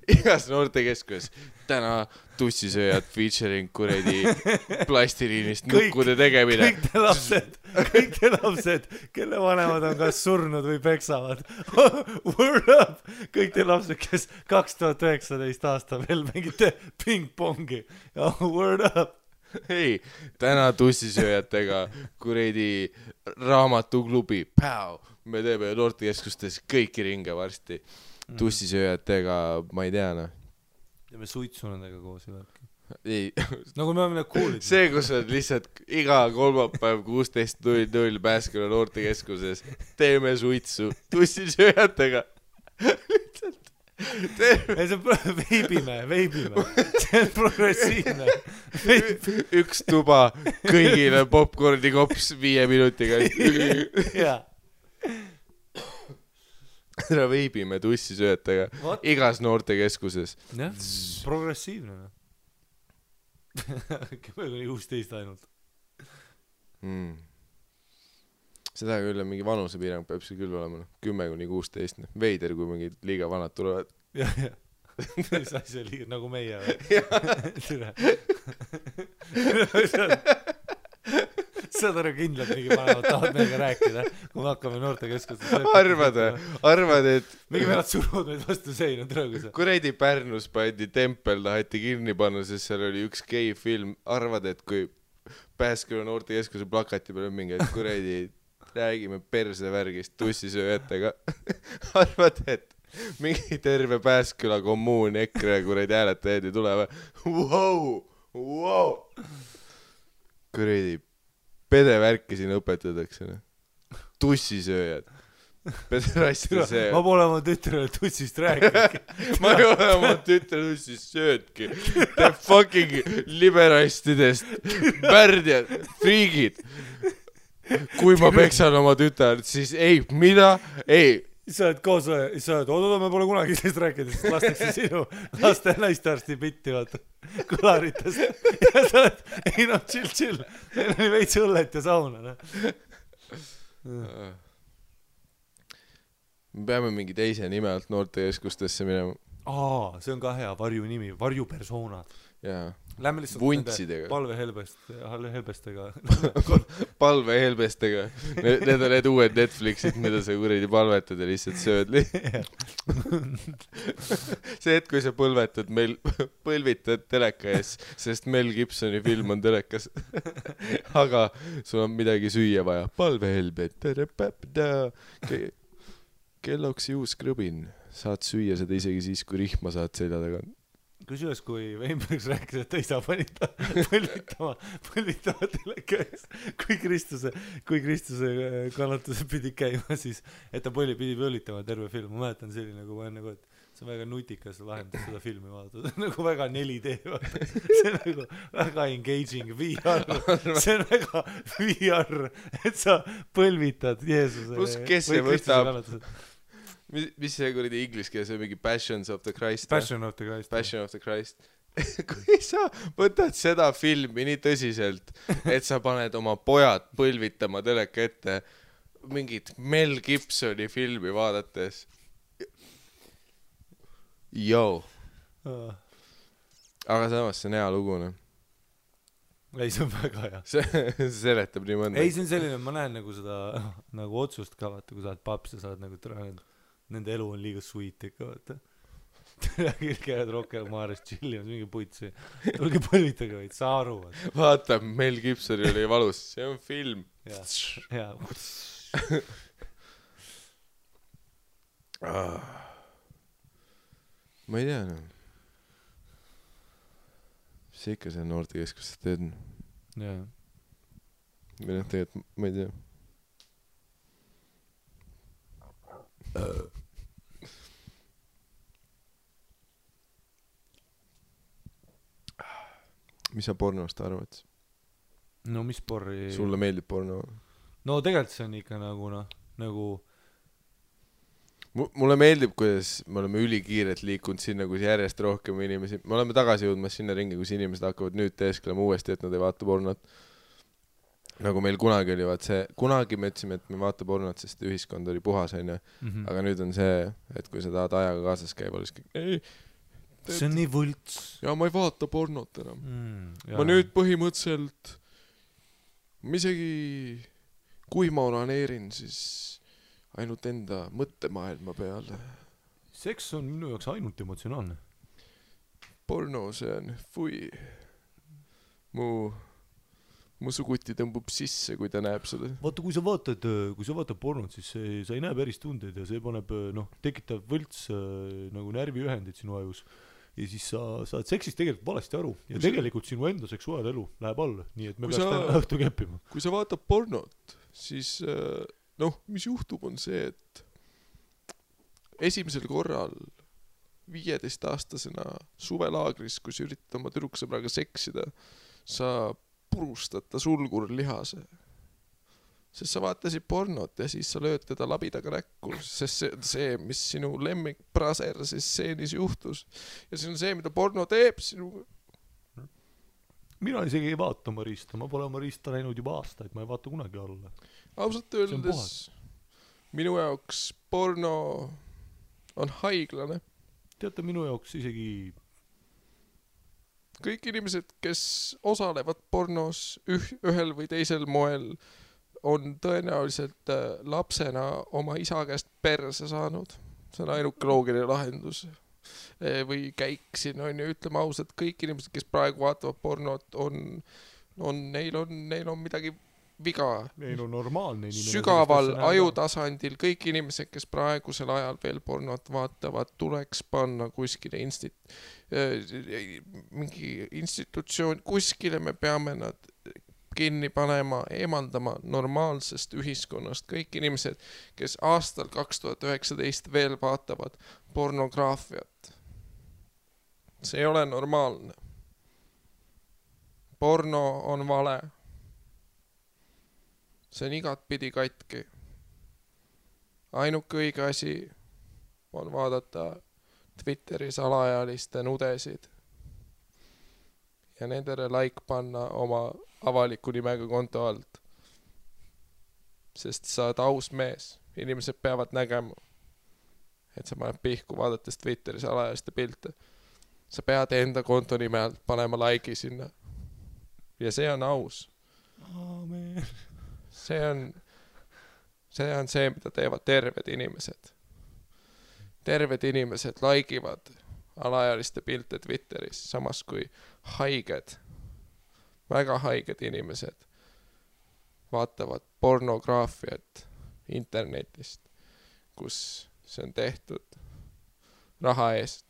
Igas noortekeskus täna tussisööjad featuring kuredi plastiliinist nukkude tegemine. Kõik te lapsed, kelle vanemad on kas surnud või peksavad. Word up! Kõik te lapsed, kes 2019 aasta veel mingite ping-pongi. Word up! ei, täna tussisööjatega kuradi raamatuklubi, me teeme noortekeskustes kõiki ringe varsti. Tussisööjatega, ma ei tea, noh. Teeme suitsu nendega koos ja värki. Ei, nagu me oleme need kuulid. see, kus on lihtsalt iga kolmapäev 16.00 Pääsküla noortekeskuses, teeme suitsu tussisööjatega. Lihtsalt. Ei, see on veibime. See on progressiivne. Üks tuba, kõigile popcorni kops 5 minutiga. Jaa. Ära veibime tussisööjatega igas noortekeskuses. Jah, progressiivne. 10-16 ainult. Seda küll on mingi vanusepiirang, peab see küll olema 10-16. Veider, kui mingid liiga vanad tulevad. Jah. Mis asja liiga, nagu meie. Saad aru kindlalt mingi panevad, tahad meiega rääkida, kui me hakkame noortekeskustes. Arvad, et mingi venad suruvad meid vastu seina trõõgusa. kuradi Pärnus pandi tempel, taheti kinni panna, sest seal oli üks gei film. Arvad, et kui Pääsküla noortekeskuse plakati peal on mingi, et kuradi räägime persevärgist tussisööjatega. Arvad, et mingi terve Pääsküla kommuun EKRE kuradi hääletajaid ei tule või? Wow. Kuradi pedevärki siin õpetatakse. Tussisööjad. Pederastide see. Ma pole oma tütrele tussist rääkinud. Ma ei ole oma tütre tussist söödki. The fucking liberastidest värdjad, friigid. Kui ma peksan oma tütart, siis ei, mida? Ei. Sa oled koos, sa oled, oodada, me pole kunagi sellest rääkinud, sest lastakse sinu laste naistearsti bitti, vaata, kõlaritest. Ja sa oled, ei noh, chill. Meil oli veits õllet ja sauna, noh. Me peame mingi teise nime alt noortekeskustesse minema. See on ka hea varju nimi, varjupersoonad. Jaa. Lähme lihtsalt Vuntsidega. Palvehelbestega. Palvehelbestega. Need on need uued Netflixid, mida sa kuradi palvetad ja lihtsalt sööd. See hetk, kui sa põlvitad teleka ees, sest Mel Gibsoni film on telekas. Aga sul on midagi süüa vaja. Palvehelbet. Kelloks juus krõbin. Saad süüa seda isegi siis, kui rihma saad selja taga. Kusjuures, kui Weinbergs rääkis, et ta ei saa põlvitama teleka ees, kui Kristuse kannatused pidi käima, siis et ta pidi põlvitama terve film. Ma mäletan selline, nagu ma nagu, et see on väga nutikas lahendus seda filmi vaadata. See on nagu väga 4D, vaata. See on nagu väga engaging VR. See on väga VR, et sa põlvitad Jeesuse. Plus, kes see võtab? Mis see kuradi inglis keeles on mingi Passions of the Christ? Passion of the Christ. Kui sa võtad seda filmi nii tõsiselt, et sa paned oma pojad põlvitama teleka ette mingit Mel Gibsoni filmi vaadates. Aga samas see on hea lugu, noh. Ei, see on väga hea. See seletab nii mõnda. Ei, see on selline, ma näen nagu seda nagu otsust ka, vaata, kui sa oled paps ja sa oled nagu nende elu on liiga sweet ikka, vaata. Käed rohkem maares chillimas, mingi putsi. Tulge põlvitage vaid, sa aru. Vaata, Mel Gibsoni oli valus. See on film. Jaa. Ma ei tea, noh. Mis see ikka see noortekeskustes teed? Jaa. Või noh, tegelikult, ma ei tea. Mis sa pornost arvad? No mis porri? Sulle meeldib porno? No tegelikult see on ikka nagu Mulle meeldib, kuidas me oleme ülikiirelt liikunud sinna, kus järjest rohkem inimesi. Me oleme tagasi jõudmas sinna ringi, kus inimesed hakkavad nüüd teesklema uuesti, et nad ei vaata pornot. Nagu meil kunagi oli, kunagi me ütlesime, et me vaata pornot, sest ühiskond oli puhas, on ju. Aga nüüd on see, et kui sa tahad ajaga kaasas käiva, siis ei, see on nii võlts. Ja ma ei vaata pornot enam. Ma nüüd põhimõtteliselt, ma isegi, kui ma oraneerin, siis ainult enda mõttemaailma peale. Seks on minu jaoks ainult emotsionaalne. Porno, see on fui. mu suguti tõmbub sisse, kui ta näeb seda. Vaata, kui sa vaatad pornot, siis sa ei näe päris tundeid ja see paneb, tekitab võlts nagu närviühendid sinu ajus. Ja siis sa saad seksist tegelikult valesti aru ja tegelikult sinu enda seksuaalelu läheb alla, nii et me peaks täna õhtu keppima. Kui sa vaatad pornot, siis mis juhtub on see, et esimesel korral 15-aastasena suvelaagris, kui sa üritad oma tüdruksõbraga seksida, sa purustad ta sulgurlihase. Sest sa vaatasid pornot ja siis sa lööd teda labidaga näkku, sest see, mis sinu lemmik praser siis stseenis juhtus. Ja see on see, mida porno teeb sinuga. Mina isegi ei vaata Marista, ma pole Marista näinud juba aastaid, ma ei vaata kunagi alla. Ausalt öeldes, minu jaoks porno on haiglane. Teate, minu jaoks isegi kõik inimesed, kes osalevad pornos ühel või teisel moel, on tõenäoliselt lapsena oma isa käest perse saanud. See on ainuke loogiline lahendus. Või käik siin on ju, ütleme ausalt, kõik inimesed, kes praegu vaatavad pornot, neil on midagi viga. Neil on normaalne inimene. Sügaval ajutasandil kõik inimesed, kes praegusel ajal veel pornot vaatavad, tuleks panna kuskile mingi institutsioon, kuskile me peame nad kinni panema, eemaldama normaalsest ühiskonnast. Kõik inimesed, kes aastal 2019 veel vaatavad pornograafiat. See ei ole normaalne. Porno on vale. See on igatpidi katki. Ainuke õige asi on vaadata Twitteris alaealiste nudesid ja nendele like panna oma avaliku nimega konto alt. Sest sa oled aus mees. Inimesed peavad nägema, et sa paned pihku vaadates Twitteris alaealiste pilte. Sa pead enda konto nime alt panema like'i sinna. Ja see on aus. Aamen. See on see, mida teevad terved inimesed. Terved inimesed like'ivad alaealiste pilte Twitteris, samas kui haiged, väga haiged inimesed vaatavad pornograafiat internetist, kus see on tehtud raha eest.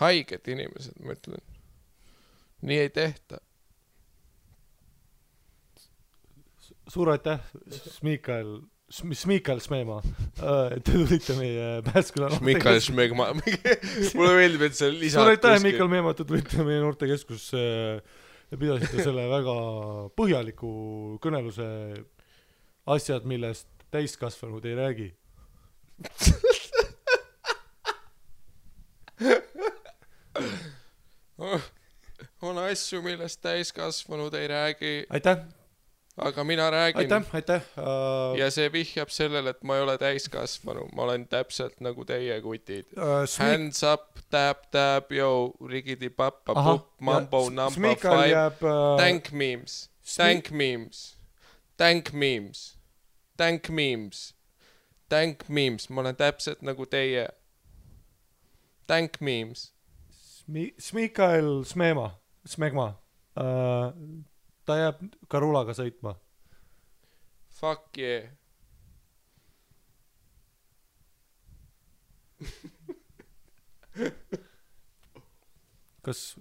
Haiged inimesed, ma ütlen. Nii ei tehta. Suur aitäh, Smikael Smeemaa, et te tulite meie Pääsküla Smikael Smeemaa. Mulle meeldib, et see lisad. Suur aitäh, Mikael Meemaa, et te tulite meie noortekeskusse ja pidasite selle väga põhjaliku kõneluse asjad, millest täiskasvanud ei räägi. On asju, millest täiskasvanud ei räägi. Aitäh! Aga mina räägin. Aitäh. Ja see vihjab sellele, et ma ei ole täiskasvanu. Ma olen täpselt nagu teie kutid. Hands up, tap, yo, rigidi pappa, pup, mambo, number 5. Thank memes. Thank memes. Thank memes. Thank memes. Thank memes. Ma olen täpselt nagu teie. Thank memes. Smikael Smegma. Ta jääb Karulaga sõitma. Fuck yeah. Kas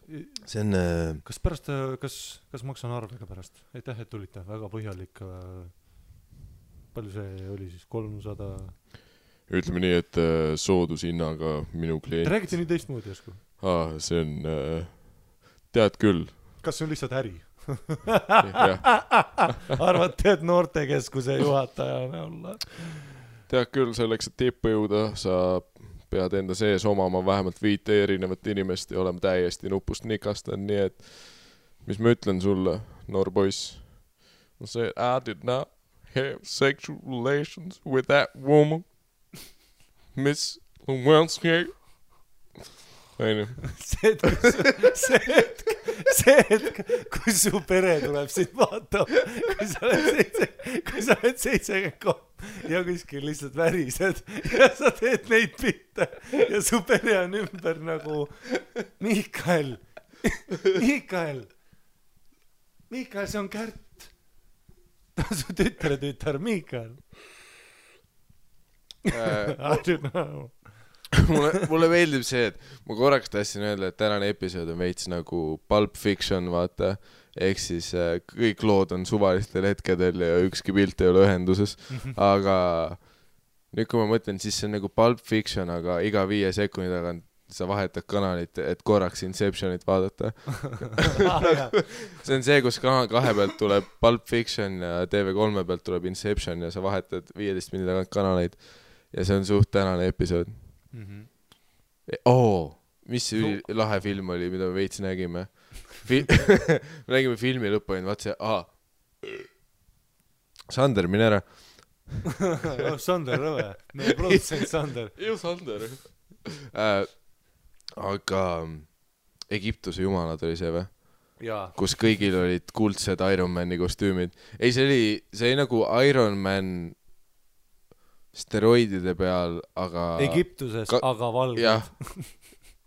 pärast, kas maksan arvega pärast? Aitäh, et tulite. Väga põhjalik. Palju see oli siis? 300? Ütleme nii, et soodushinnaga minu klient. Te räägite nii teistmoodi jäsku? See on, tead küll. Kas see on lihtsalt äri? Arvate, et noortekeskuse juhatajana olla? Tead küll, selleks, et tippu jõuda, sa pead enda sees omama vähemalt 5 erinevat inimest ja olema täiesti nupust nikastan, nii et mis ma ütlen sulle, noor poiss? Ma see, I did not have sexual relations with that woman, Miss Lewinsky. See hetk, kui su pere tuleb sind vaatama, kui sa oled 73 ja kuskil lihtsalt värised ja sa teed neid pilte ja su pere on ümber nagu Mikael, Miikael, see on Kärt. Ta on su tütre Miikael. I don't know. mulle meeldib see, et ma korraks tahtsin öelda, et tänane episood on veits nagu Pulp Fiction, vaata, ehk siis kõik lood on suvalistel hetkedel ja ükski pilt ei ole ühenduses, aga nüüd kui ma mõtlen, siis see on nagu Pulp Fiction, aga iga 5 sekundi tagant sa vahetad kanalit, et korraks Inceptionit vaadata. See on see, kus kanal 2 pealt tuleb Pulp Fiction ja TV3 pealt tuleb Inception ja sa vahetad 15 minuti tagant kanaleid ja see on suht tänane episood. Mis see lahe film oli, mida me veits nägime? Me nägime filmi lõppu ja vaat see, Sander, mine ära. Sander, rõve. Meie produtsent Sander. Sander. Aga Egiptuse jumalad oli see või? Kus kõigil olid kuldsed Iron Mani kostüümid. Ei, see oli nagu Iron Man steroidide peal, aga Egiptuses, aga valged. Jah,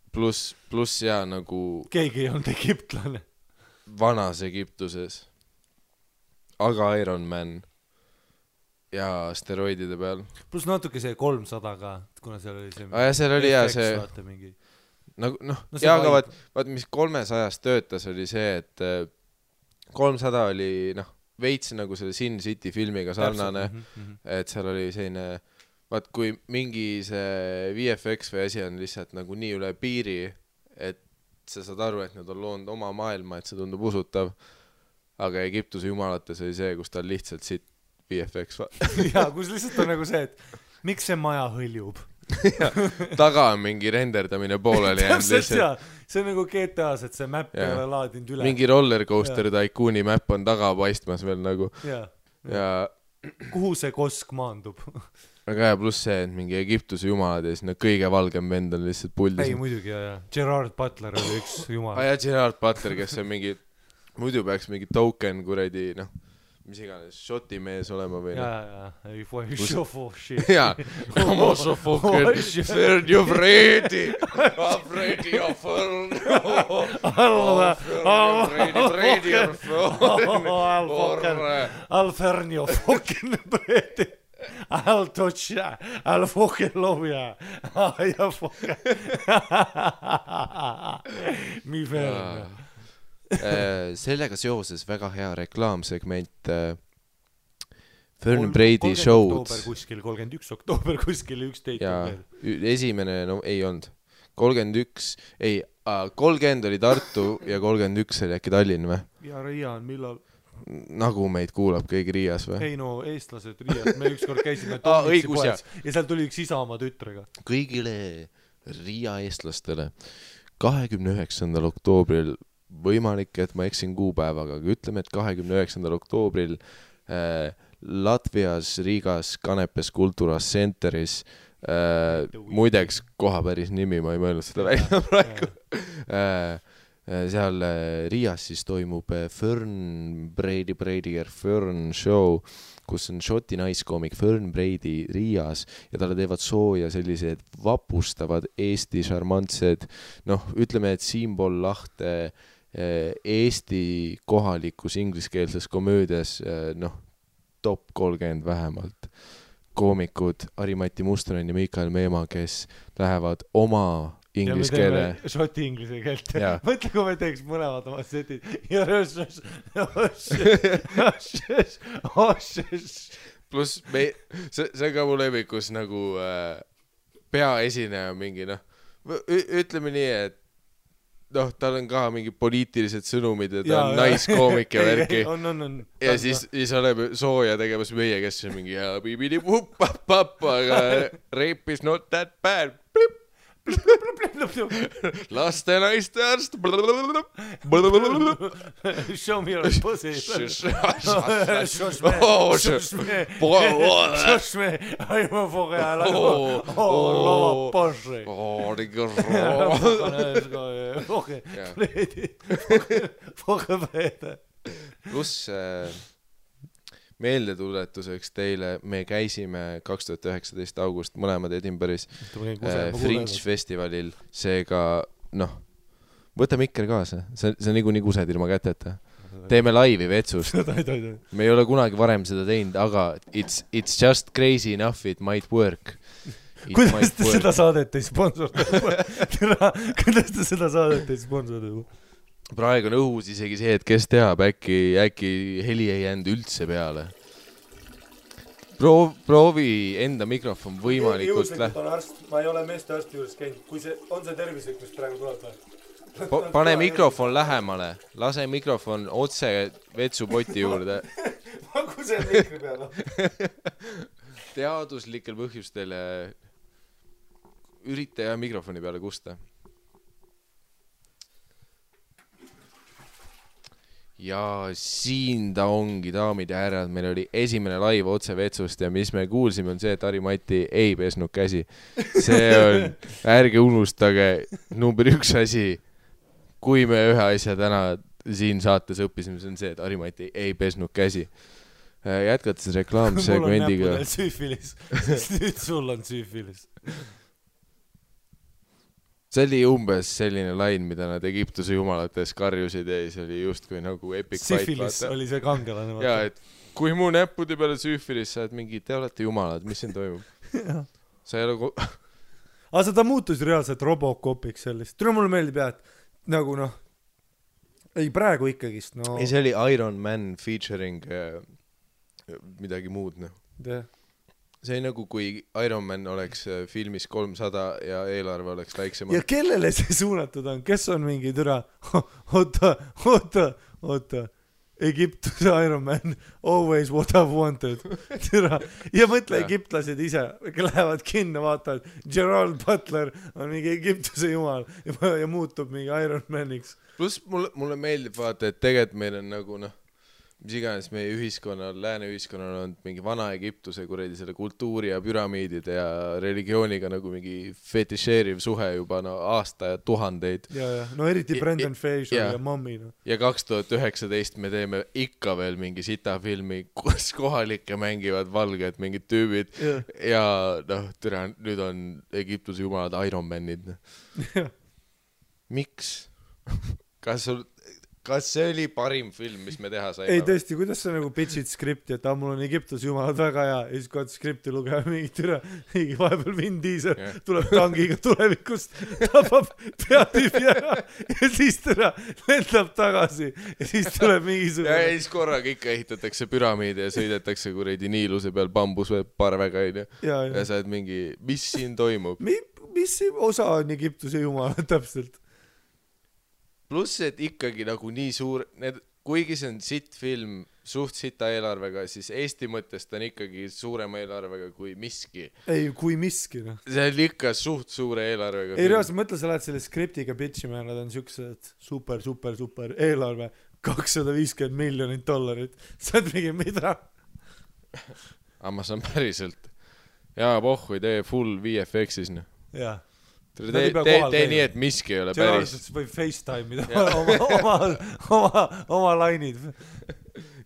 pluss ja nagu keegi ei olnud egiptlane. Vanas Egiptuses, aga Iron Man ja steroidide peal. Pluss natuke see 300 ka, kuna seal oli see seal oli see nagu, aga vaat mis 300 töötas oli see, et 300 oli veits nagu selle Sin City filmiga sarnane, et seal oli selline, vaat kui mingi see VFX või asi on lihtsalt nagu nii üle piiri, et sa saad aru, et nad on loonud oma maailma, et see tundub usutav, aga Egiptuse jumalates oli see, kus ta lihtsalt siit VFX kus lihtsalt on nagu see, et miks see maja hõljub? Taga on mingi renderdamine pooleli lihtsalt. See on nagu GTA-s, et see map ei ole laadinud üle. Mingi rollercoaster Tycooni map on taga paistmas veel nagu. Ja kuhu see kosk maandub? Aga pluss see, et mingi Egiptuse jumalad ja siis kõige valgem vend on lihtsalt puldis. Ei, muidugi, Gerard Butler oli üks jumal. Gerard Butler, kes on mingi, muidu peaks mingi token kuradi, mis iganes, shoti mees olema või ei šofoši Como šofoken Fernjo Fredi Fredi ja Fern Fredi Al Fernjo Foken Fredi Al Tocha Al Foken Lovja ja Foken Mi Fern sellega seoses väga hea reklaamsegment Fern Brady show'd 31. oktoober kuskil 11 ja esimene, ei olnud 30 oli Tartu ja 31 oli äkki Tallinn või? Ja Riia on millal? Nagu meid kuulab keegi Riias või? Ei eestlased Riias, me ükskord käisime Tommitsi poes ja seal tuli üks isa oma tütrega. Kõigile Riia eestlastele 29. oktoobril võimalik, et ma eksin kuupäevaga, aga ütleme, et 29. oktoobril Latvias, Riigas, Kanepes Kulturas Centeris muideks koha päris nimi, ma ei mõelnud seda välja praegu seal Riias siis toimub Fern Fern show, kus on šoti naiskoomik Fern Brady Riias ja talle teevad sooja sellised vapustavad Eesti šarmantsed, ütleme, et Siim-Pool Lahte Eesti kohalikus ingliskeelses komöödias top 30 vähemalt koomikud Ari-Mati Mustonen ja Miikael Meemaa, kes lähevad oma inglise keele šoti inglise keelt mõtle, kui me teeks mõlemad oma setid pluss see ka mu levikus nagu peaesineja mingi ütleme nii, et tal on ka mingi poliitilised sõnumid ja ta on naiskoomik ja värki ja siis oleme sooja tegemas meie, kes on mingi aga rape is not that bad laste naiste arst show me your pussy aima foga lava Porsche foga Frede pluss meeldetuletuseks teile, me käisime 2019 august mõlemad Edinburgh'is Fringe festivalil, seega võta mikker kaasa, see on niikuinii kused ilma käteta teeme laivi vetsust . tohi . me ei ole kunagi varem seda teinud , aga it's just crazy enough it might work . kuidas te seda saadet ei sponsorda ? kuidas te seda saadet ei sponsorda ? praegu on õhus isegi see , et kes teab , äkki heli ei jäänud üldse peale . proovi enda mikrofon võimalikult ma ei ole meeste arsti juures käinud , kui see on see tervislik , mis praegu tuleb või ? pane mikrofon lähemale , lase mikrofon otse vetsupoti juurde . paku see mikri peale . teaduslikel põhjustel ürita ja mikrofoni peale kusta . ja siin ta ongi , daamid ja härrad , meil oli esimene live otse vetsust ja mis me kuulsime on see , et Harri-Mati ei pesnud käsi . see on , ärge unustage , number 1 asi , kui me ühe asja täna siin saates õppisime , see on see , et Harri-Mati ei pesnud käsi . jätkates reklaamsegmendiga . mul on näppudel süüfilis , sest nüüd sul on süüfilis . see oli umbes selline lain , mida nad Egiptuse jumalates karjusid ja siis oli justkui nagu epic fight . Syphilis oli see kangelane . ja , et kui mu näppude peale süüfilis , sa oled mingi , te olete jumalad , mis siin toimub ? sa ei ole aga ta muutus reaalselt Robocopiks sellist . tule mulle meeldib jah , et nagu noh , ei praegu ikkagist , no ei , see oli Iron Man featuring midagi muud , noh . see oli nagu , kui Iron Man oleks filmis 300 ja eelarve oleks väiksem . ja kellele see suunatud on , kes on mingi türa , oota , Egiptuse Iron Man , always what I've wanted , türa , ja mõtle egiptlased ise , lähevad kinno , vaatavad , Gerald Butler on mingi Egiptuse jumal ja muutub mingi Iron Maniks . pluss mulle meeldib vaata , et tegelikult meil on nagu noh , mis iganes meie ühiskonnal , lääne ühiskonnal on mingi Vana-Egiptuse kuradi selle kultuuri ja püramiidide ja religiooniga nagu mingi fetišeeriv suhe juba no aasta ja tuhandeid . ja , no eriti Brendan Fraser ja Mommy no. ja 2019 me teeme ikka veel mingi sitafilmi , kus kohalikke mängivad valged mingid tüübid ja noh , türa , nüüd on Egiptuse jumalad Iron Manid no. Miks ? kas see oli parim film , mis me teha saime ? ei tõesti , kuidas sa nagu pitch'id skripti , et mul on Egiptuse jumalad väga hea ja siis kui skripti lugema mingi türa , mingi vahepeal Vin Diesel tuleb tangiga tulevikust , tapab peatüübi ära ja siis türa lendab tagasi ja siis tuleb mingisugune ja siis korraga ikka ehitatakse püramiide ja sõidetakse kuradi Niiluse peal bambusparvega ja sa oled mingi , mis siin toimub ? mis osa on Egiptuse jumalad täpselt ? pluss , et ikkagi nagu nii suur , kuigi see on sitt film , suht sita eelarvega , siis Eesti mõttes ta on ikkagi suurema eelarvega kui miski . ei , kui miski noh . see on ikka suht suure eelarvega . ei reaalselt mõtle , sa lähed selle skriptiga pitchima ja nad on siuksed super eelarve , $250 miljonit . sa oled mingi mida ? aga ma saan päriselt . jaa , pohhu , tee full VFX-is noh . jaa . tee nii , et miski ei ole päris . võib FaceTime'ida oma lainid .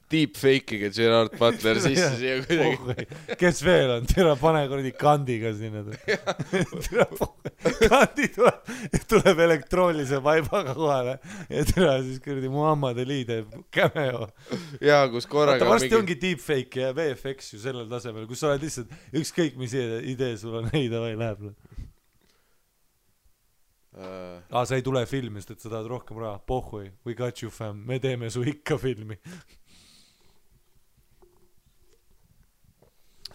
Deepfake'iga Gerard Butler sisse siia kuidagi . kes veel on ? tere , pane kuradi kandiga sinna . kandi tuleb elektroonilise vaibaga kohale ja tere siis kuradi Muhammad Ali teeb cameo . jaa , kus korraga varsti ongi deepfake ja VFX ju sellel tasemel , kus sa oled lihtsalt ükskõik mis idee sul on , ei davai läheb . sa ei tule filmi , sest et sa tahad rohkem raha , pohhui , we got you fam , me teeme su ikka filmi .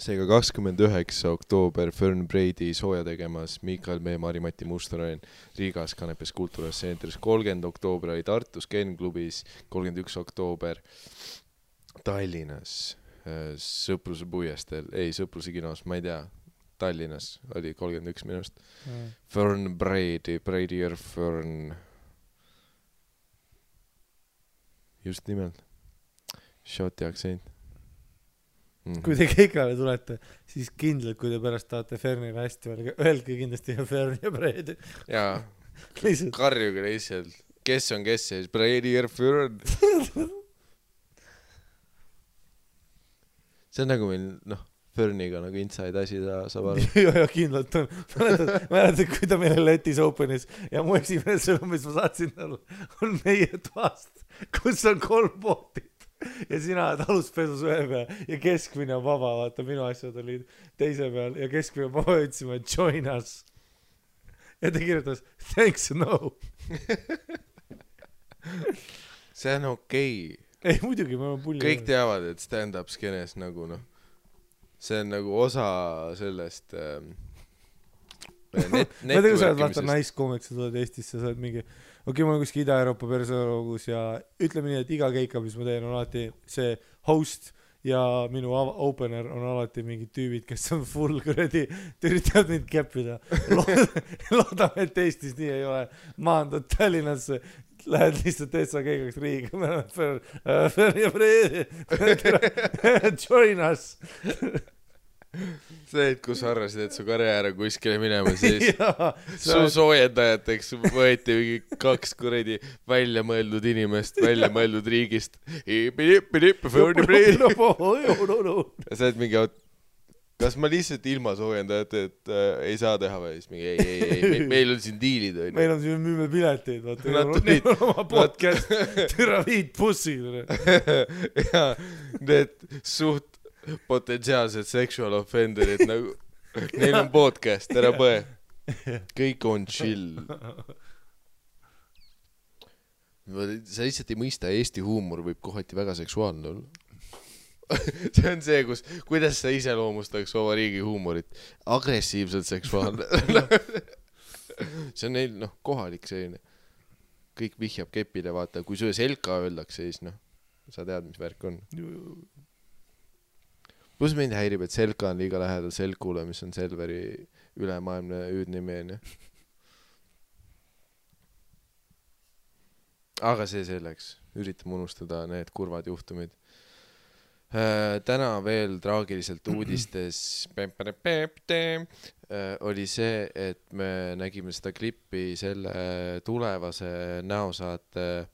seega 29. oktoober Fern Brady sooja tegemas Miikael Meemaa , Mari-Mati Mustonen Riigas Kanepes Kultuuras Centeris , 30. oktoober oli Tartus Ken klubis , 31. oktoober Tallinnas Sõpruse puiesteel , ei Sõpruse kinos , ma ei tea , Tallinnas oli 31 minust . Fern Brady , Brady'r Fern . just nimelt . Shoti aktsent . kui te Keikale tulete , siis kindlalt , kui te pärast tahate Fernile hästi öelge kindlasti Fern ja Brady . jaa , karjuge lihtsalt , kes on kes ja siis Brady'r Fern . see on nagu meil , noh , Ferniga nagu inside asi ta saab aru. ja kindlalt on. Mäletad, kui ta meile Letis Openis ja mu esimene sõnum, mis ma saatsin talle, on meie toast, kus on 3 voodit ja sina oled aluspesus ühe peal ja keskmine on vaba, vaata minu asjad olid teise peal ja keskmine on vaba, ütlesime join us ja ta kirjutas thanks no. See on okei. Ei muidugi, ma olen pulli. Kõik teavad, et stand-up skenes nagu noh, see on nagu osa sellest ma tean, kui sa oled vaata naiskoomiks, sa tuled Eestisse, sa oled mingi okei, ma olen kuskil Ida-Euroopa persoonalogus ja ütleme nii, et iga keika, mis ma teen, on alati see host ja minu opener on alati mingid tüübid, kes on full kuradi, üritavad mind keppida. Loodame, et Eestis nii ei ole. Maandad Tallinnasse, lähed lihtsalt Eessa keigaks riigiga, me oleme join us. See, et kus arvasid, et su karjäär on kuskile minema, siis su soojendajateks võeti mingi 2 kuradi välja mõeldud inimest, välja mõeldud riigist. Ja sa oled mingi, kas ma lihtsalt ilma soojendajate, et ei saa teha või? Siis mingi ei, meil on siin diilid. Meil on siin müüme pileteid, vaata. Neil on oma podcast, türa viid bussid. Ja need suht potentsiaalsed sexual offenderid nagu, neil on podcast, ära põe. Kõik on chill. Sa lihtsalt ei mõista, Eesti huumor võib kohati väga seksuaalne olla. See on see, kuidas sa iseloomustaks oma riigi huumorit. Agressiivselt seksuaalne. See on neil, kohalik selline. Kõik vihjab kepile, vaata. Kui sulle selka öeldakse, siis sa tead, mis värk on. Plus mind häirib, et selka on liiga lähedal selkule, mis on Selveri ülemaailmne hüüdnimi. Aga see selleks. Üritame unustada need kurvad juhtumid. Täna veel traagiliselt uudistes oli see, et me nägime seda klippi selle tulevase näosaate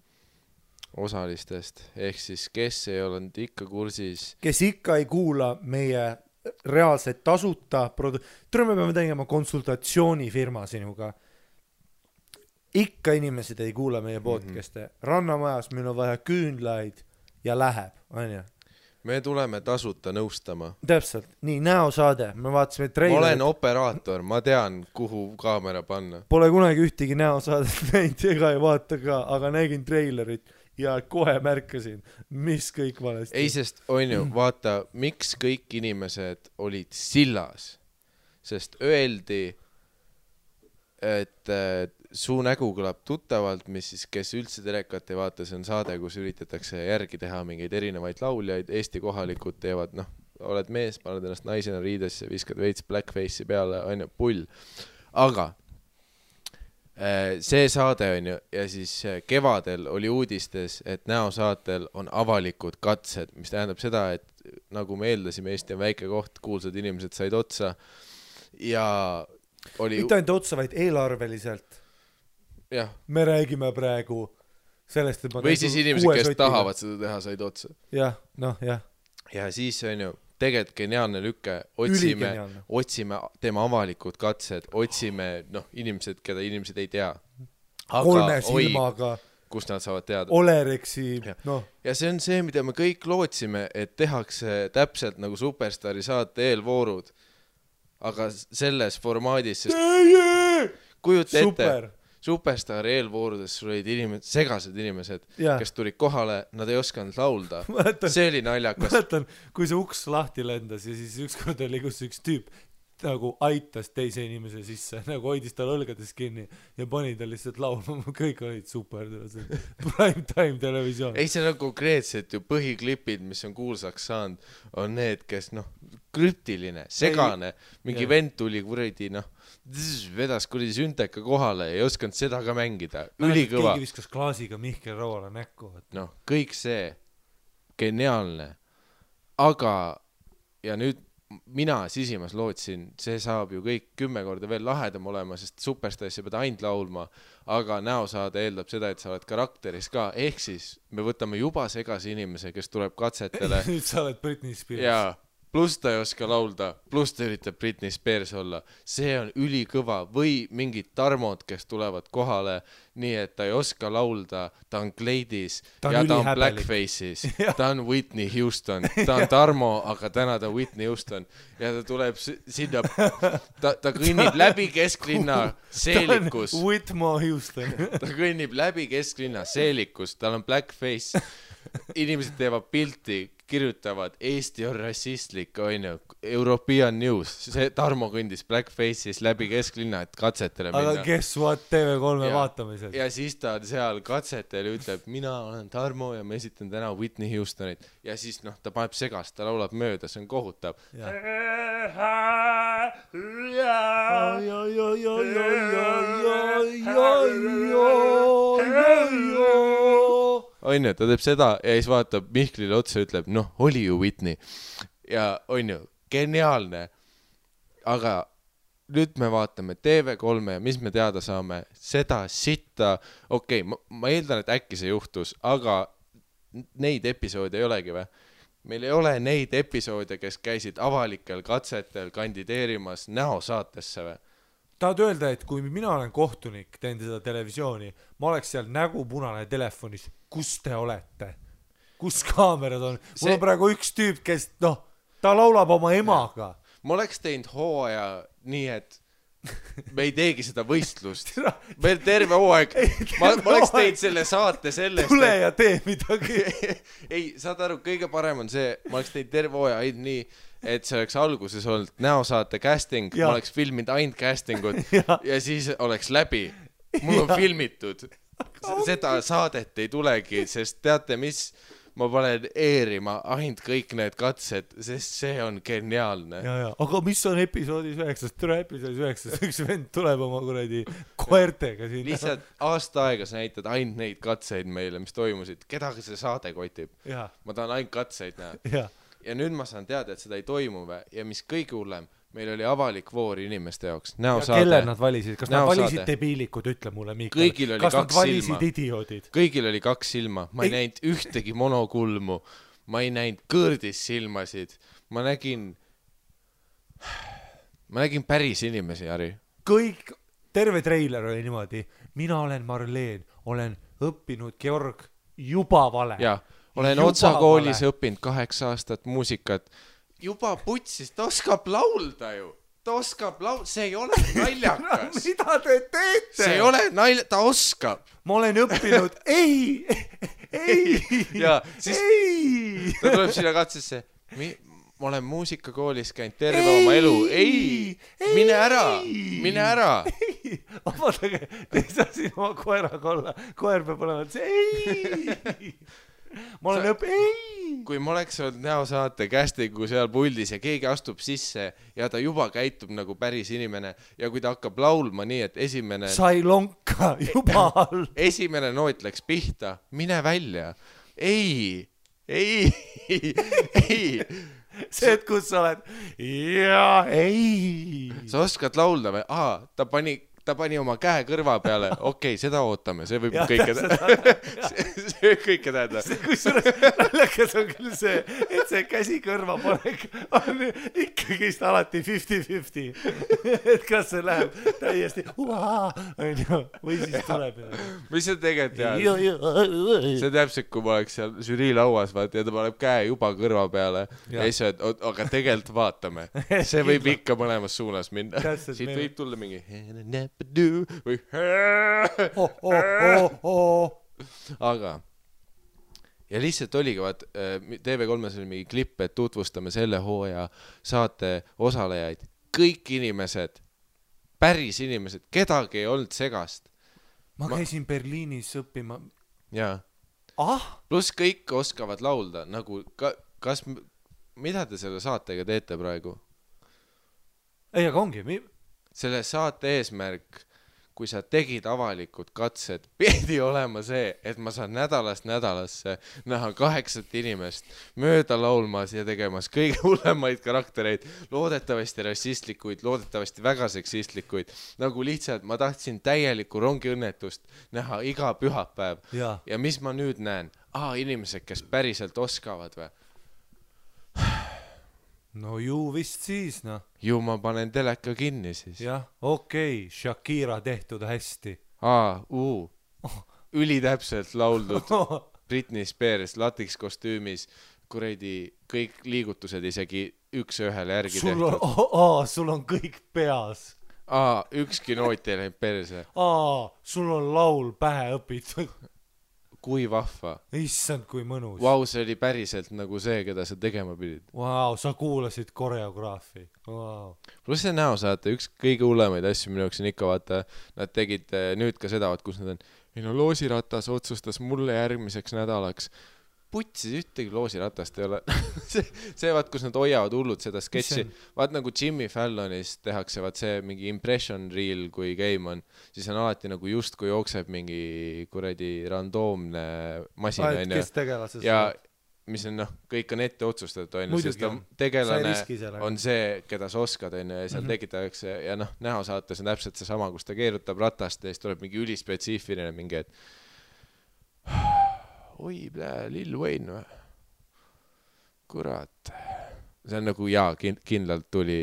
osalistest, ehk siis kes ei olnud ikka kursis, kes ikka ei kuula meie reaalselt tasuta me peame tegema konsultatsioonifirma sinuga, ikka inimesed ei kuula meie podcast'e. Rannamajas meil on vaja küünlaid ja läheb, on ju. Me tuleme tasuta nõustama. Täpselt, nii näosaade, me vaatasime treilerit. Ma olen operaator, ma tean, kuhu kaamera panna. Pole kunagi ühtegi näosaadet näinud ega ei vaata ka, aga nägin treilerit ja kohe märkasin, mis kõik valesti. Ei, sest on ju, vaata, miks kõik inimesed olid sillas, sest öeldi, et su nägu kõlab tuttavalt, mis siis, kes üldse telekat ei vaata, see on saade, kus üritatakse järgi teha mingeid erinevaid lauljaid, Eesti kohalikud teevad, oled mees, paned ennast naisena riidesse, viskad veits blackface'i peale, on ju, pull. Aga see saade on ju, ja siis kevadel oli uudistes, et näosaatel on avalikud katsed, mis tähendab seda, et nagu me eeldasime, Eesti on väike koht, kuulsad inimesed said otsa ja oli... Mitte ainult otsa, vaid eelarveliselt. Jah. Me räägime praegu sellest, et või siis inimesed, kes tahavad seda teha, said otsa. Jah, jah. Ja siis on ju tegelikult geniaalne lükke, otsime tema avalikud katsed, otsime inimesed, keda inimesed ei tea. Aga, 3 silmaga. Kus nad saavad teada. Olereksi, Ja see on see, mida me kõik lootsime, et tehakse täpselt nagu Superstaari saate eelvoorud. Aga selles formaadis, sest kujuta ette, Superstaari eelvoorudes sul olid segased inimesed, kes tulid kohale, nad ei osanud laulda. See oli naljakas. Mäletan, kui see uks lahti lendas ja siis ükskord oli kus üks tüüp nagu aitas teise inimese sisse, nagu hoidis tal õlgades kinni ja pani ta lihtsalt laulma, kõik olid super, prime time televisioon. Ei, see on konkreetselt ju põhiklipid, mis on kuulsaks saanud, on need, kes krüptiline, segane, mingi vend tuli kuradi, vedas kuradi sünteka kohale ja ei osanud seda ka mängida. Ülikõva. Keegi viskas klaasiga Mihkel Rauale näkku. Kõik see, geniaalne. Aga, ja nüüd mina sisimas lootsin, see saab ju kõik 10 korda veel lahedam olema, sest Superstarisse pead ainult laulma, aga näosaade eeldab seda, et sa oled karakteris ka, ehk siis me võtame juba segase inimese, kes tuleb katsetele. Nüüd sa oled Britney Spears. Ja pluss ta ei oska laulda, pluss ta üritab Britney Spears olla. See on ülikõva. Või mingid Tarmod, kes tulevad kohale nii, et ta ei oska laulda, ta on kleidis ja ta on blackface'is. Ta on Whitney Houston. Ta on Tarmo, aga täna ta on Whitney Houston. Ja ta tuleb sinna, ta kõnnib läbi kesklinna seelikus. Ta on Whitmore Houston. Ta kõnnib läbi kesklinna seelikus, tal on blackface. Inimesed teevad pilti, kirjutavad Eesti on rassistlik, onju, European News. See Tarmo kõndis blackface'is läbi kesklinna, et katsetele minna. Aga guess what, TV3 vaatamisel. Ja siis ta seal katsetel ütleb, mina olen Tarmo ja ma esitan täna Whitney Houstonit. Ja siis ta paneb segast, ta laulab mööda, see on kohutav. Onju, ta teeb seda ja siis vaatab Mihklile otsa ja ütleb, oli ju Whitney. Ja onju, geniaalne. Aga nüüd me vaatame TV3 ja mis me teada saame, seda sitta, okei, ma eeldan, et äkki see juhtus, aga neid episoode ei olegi või? Meil ei ole neid episoode, kes käisid avalikel katsetel kandideerimas näosaatesse või? Tahad öelda, et kui mina olen kohtunik, teen seda televisiooni, ma oleks seal nägu punane telefonis, kus te olete? Kus kaamerad on? Mul on praegu üks tüüp, kes, ta laulab oma emaga. Ma oleks teinud hooaja nii, et me ei teegi seda võistlust. Meil terve hooaeg. Ma oleks teinud selle saate sellest. Tule ja tee midagi. Ei, saad aru, kõige parem on see, ma oleks teinud terve hooaja ainult nii, et see oleks alguses olnud näosaate casting, ma oleks filminud ainult castingut ja siis oleks läbi. Mul on filmitud. Seda saadet ei tulegi, sest teate mis, ma panen eerima ainult kõik need katsed, sest see on geniaalne. Aga mis on episoodis 9? Tule episoodis 9, üks vend tuleb oma kuradi koertega siin. Lihtsalt aasta aega sa näitad ainult neid katseid meile, mis toimusid. Kedagi see saade kotib? Ma tahan ainult katseid näha. Ja nüüd ma saan teada, et seda ei toimu ja mis kõige hullem, meil oli avalik voor inimeste jaoks. Ja kelle nad valisid? Kas nad valisid debiilikud, ütle mulle, Miikal. Kas nad valisid idioodid? Kõigil oli 2 silma. Ma ei näinud ühtegi monokulmu. Ma ei näinud kõrdis silmasid. Ma nägin päris inimesi, Jari. Kõik, terve treiler oli niimoodi. Mina olen Marleen, olen õppinud Georg juba vale. Olen otsakoolis õppinud 8 aastat muusikat. Juba putsis, ta oskab laulda ju. See ei ole naljakas. Mida te teete? See ei ole ta oskab. Ma olen õppinud, ei. Ja siis ta tuleb sinna katsesse. Ma olen muusikakoolis käinud terve oma elu. Ei, mine ära. Vaadake, te ei saa siin oma koeraga olla. Koer peab olema, et ei. Ma olen Kui ma oleks olnud näosaate castingu seal puldis ja keegi astub sisse ja ta juba käitub nagu päris inimene ja kui ta hakkab laulma nii, et esimene... Sai lonka juba all. Esimene noot läks pihta. Mine välja. Ei. See, et kus sa oled? Ei. Sa oskad laulda või? Ta pani oma käe kõrva peale. Okei, seda ootame. See võib kõike tähendada. Kusjuures naljakas on küll see, et see käsi kõrva panek on ikkagi alati 50-50. Et kas see läheb täiesti või siis tuleb. Mis see tegelikult tead? See täpselt, kui ma oleks seal žürii lauas ja ta paneb käe juba kõrva peale ja siis öeld, aga tegelikult vaatame. See võib ikka mõlemas suunas minna. Siit võib tulla mingi või aga ja lihtsalt oligi TV3-s oli mingi klipp, et tutvustame selle hooaja saate osalejaid, kõik inimesed, päris inimesed, kedagi ei olnud segast. Ma käisin Berliinis õppima pluss kõik oskavad laulda nagu, mida te selle saatega teete praegu? Ei, aga ongi selle saate eesmärk, kui sa tegid avalikud katsed, pidi olema see, et ma saan nädalast nädalasse näha 8 inimest mööda laulmas ja tegemas kõige hullemaid karaktereid, loodetavasti rassistlikuid, loodetavasti väga seksistlikuid, nagu lihtsalt ma tahtsin täielikku rongiõnnetust näha iga pühapäev. Ja mis ma nüüd näen? Inimesed, kes päriselt oskavad või? no ju vist siis, noh. ju ma panen teleka kinni siis. jah, okei, Shakira tehtud hästi. Ülitäpselt lauldud Britney Spears latikskostüümis, kuradi kõik liigutused isegi üks ühele järgi tehtud. Sul on kõik peas. Ükski noot ei läinud perse. Sul on laul pähe õpitud. Kui vahva. Issand, kui mõnus. Vau, see oli päriselt nagu see, keda sa tegema pidid. Vau, sa kuulasid koreograafi. Plus see näosaate, üks kõige hullemaid asju minu jaoks on ikka vaata, nad tegid nüüd ka seda, kus nad on, loosiratas otsustas mulle järgmiseks nädalaks. Putsis ühtegi loosiratast ei ole. see vaat, kus nad hoiavad hullud seda sketši. Vaat nagu Jimmy Fallonis tehakse vaat see mingi impression reel, kui game on, siis on alati nagu just kui jookseb mingi kuradi randoomne masin. Kes tegelases? Ja mis on kõik on ette otsustatud, sest tegelane on see, keda sa oskad, ja seal tekitatakse, ja näosaates on täpselt see sama, kus ta keerutab ratast ja siis tuleb mingi ülispetsiifiline mingi, et oi, Lil Wayne või? Kurat. See on nagu, kindlalt tuli,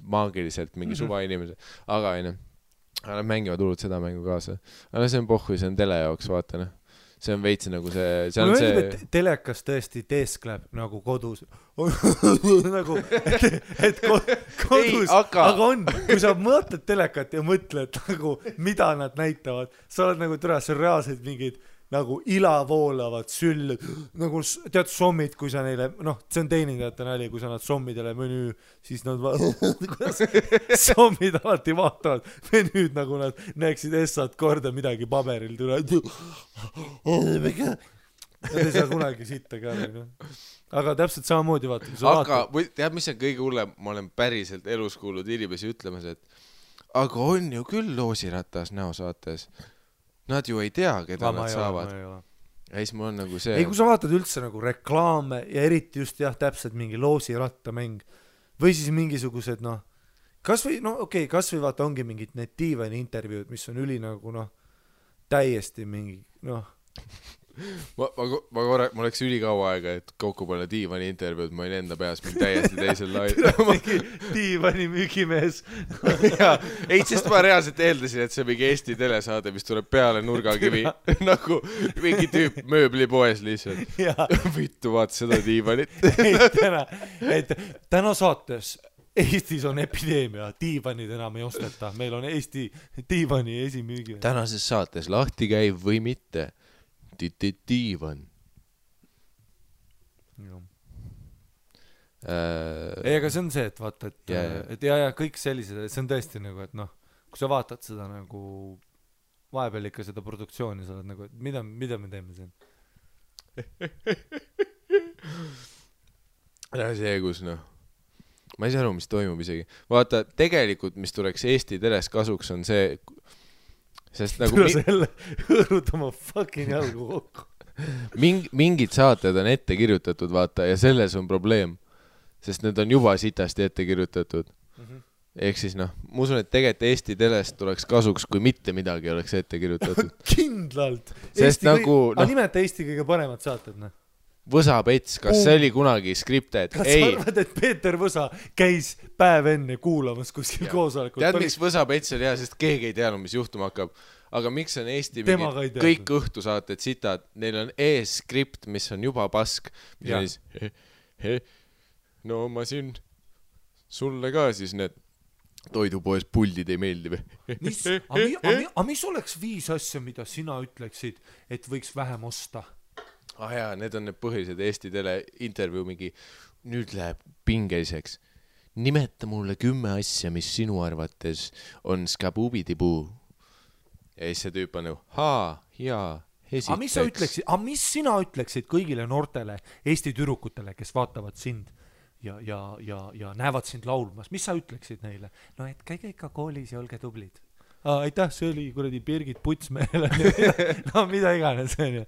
maagiliselt mingi suva inimese, aga nad mängivad hullult seda mängu kaasa. Aga see on pohhu, see on tele jaoks, vaata, see on veits nagu see on see... telekas tõesti teeskleb nagu kodus. nagu, et kodus. Ei, aga on, kui sa mõtled telekat ja mõtled nagu, mida nad näitavad, sa oled nagu see on reaalselt mingid nagu ilavoolavad süllud, nagu tead sommid, kui sa neile, see on teenindajate nali, kui sa nad sommidele menüü, siis nad sommid alati vaatavad menüüd, nagu nad näeksid essad korda midagi paberil tule. Nad ei saa kunagi sitta ka. Aga täpselt samamoodi vaata. Aga tead, mis on kõige hullem? Ma olen päriselt elus kuulnud inimesi ütlemas, et aga on ju küll loosiratas näosaates. Nad ju ei tea, keda nad saavad. Ja siis mul on nagu see... Ei, kui sa vaatad üldse nagu reklaame ja eriti just täpselt mingi loosirattamäng või siis mingisugused, kas või vaata ongi mingid need diivani intervjuud, mis on üli nagu, täiesti mingi, Ma oleks ülikaua aega, et kokku panna diivani intervjuud, ma olin enda peas mingi täiesti teisel lail. Diivani müügimees. Ei, sest ma reaalselt eeldasin, et see mingi Eesti telesaade, mis tuleb peale nurgakivi, nagu mingi tüüp mööblipoes lihtsalt. Vittu, vaata seda diivanit. Täna saates Eestis on epideemia, diivanid enam ei osteta. Meil on Eesti diivani esimüügi. Tänases saates lahti käiv või mitte. Diivan. Ei, aga see on see, et vaata, et kõik sellised, see on tõesti nagu, et kui sa vaatad seda nagu vahepeal ikka seda produktsiooni, sa oled nagu, et mida me teeme siin? See, kus ma ei saa aru, mis toimub isegi. Vaata, tegelikult, mis tuleks Eesti teles kasuks, on see sest nagu tule selle hõõrud oma fucking jalgu kokku. Mingid saated on ette kirjutatud, vaata, ja selles on probleem. Sest need on juba sitasti ette kirjutatud. Ehk siis ma usun, et tegelikult Eesti telest tuleks kasuks, kui mitte midagi oleks ette kirjutatud. Kindlalt. Sest nagu... nimeta Eesti kõige paremad saated, Võsa-Pets, kas see oli kunagi skripted? Kas sa arvad, et Peeter Võsa käis päev enne kuulamas kuskil koosolekul? Tead, miks Võsa-Pets oli hea, sest keegi ei teadnud, mis juhtuma hakkab. Aga miks on Eesti kõik õhtusaated sitad? Neil on ees skript, mis on juba pask. Mis on siis, no ma siin sulle ka siis need toidupoes puldid ei meeldi või? Aga mis oleks 5 asja, mida sina ütleksid, et võiks vähem osta? Jaa, need on need põhilised Eesti tele intervjuu mingi, nüüd läheb pingeliseks. Nimeta mulle 10 asja, mis sinu arvates on skabubidipuu. Ja siis see tüüp on esiteks. Aga mis sina ütleksid kõigile noortele Eesti tüdrukutele, kes vaatavad sind ja näevad sind laulmas? Mis sa ütleksid neile? No et käige ikka koolis ja olge tublid. aitäh, see oli kuradi Birgit Putsmeel no mida iganes onju.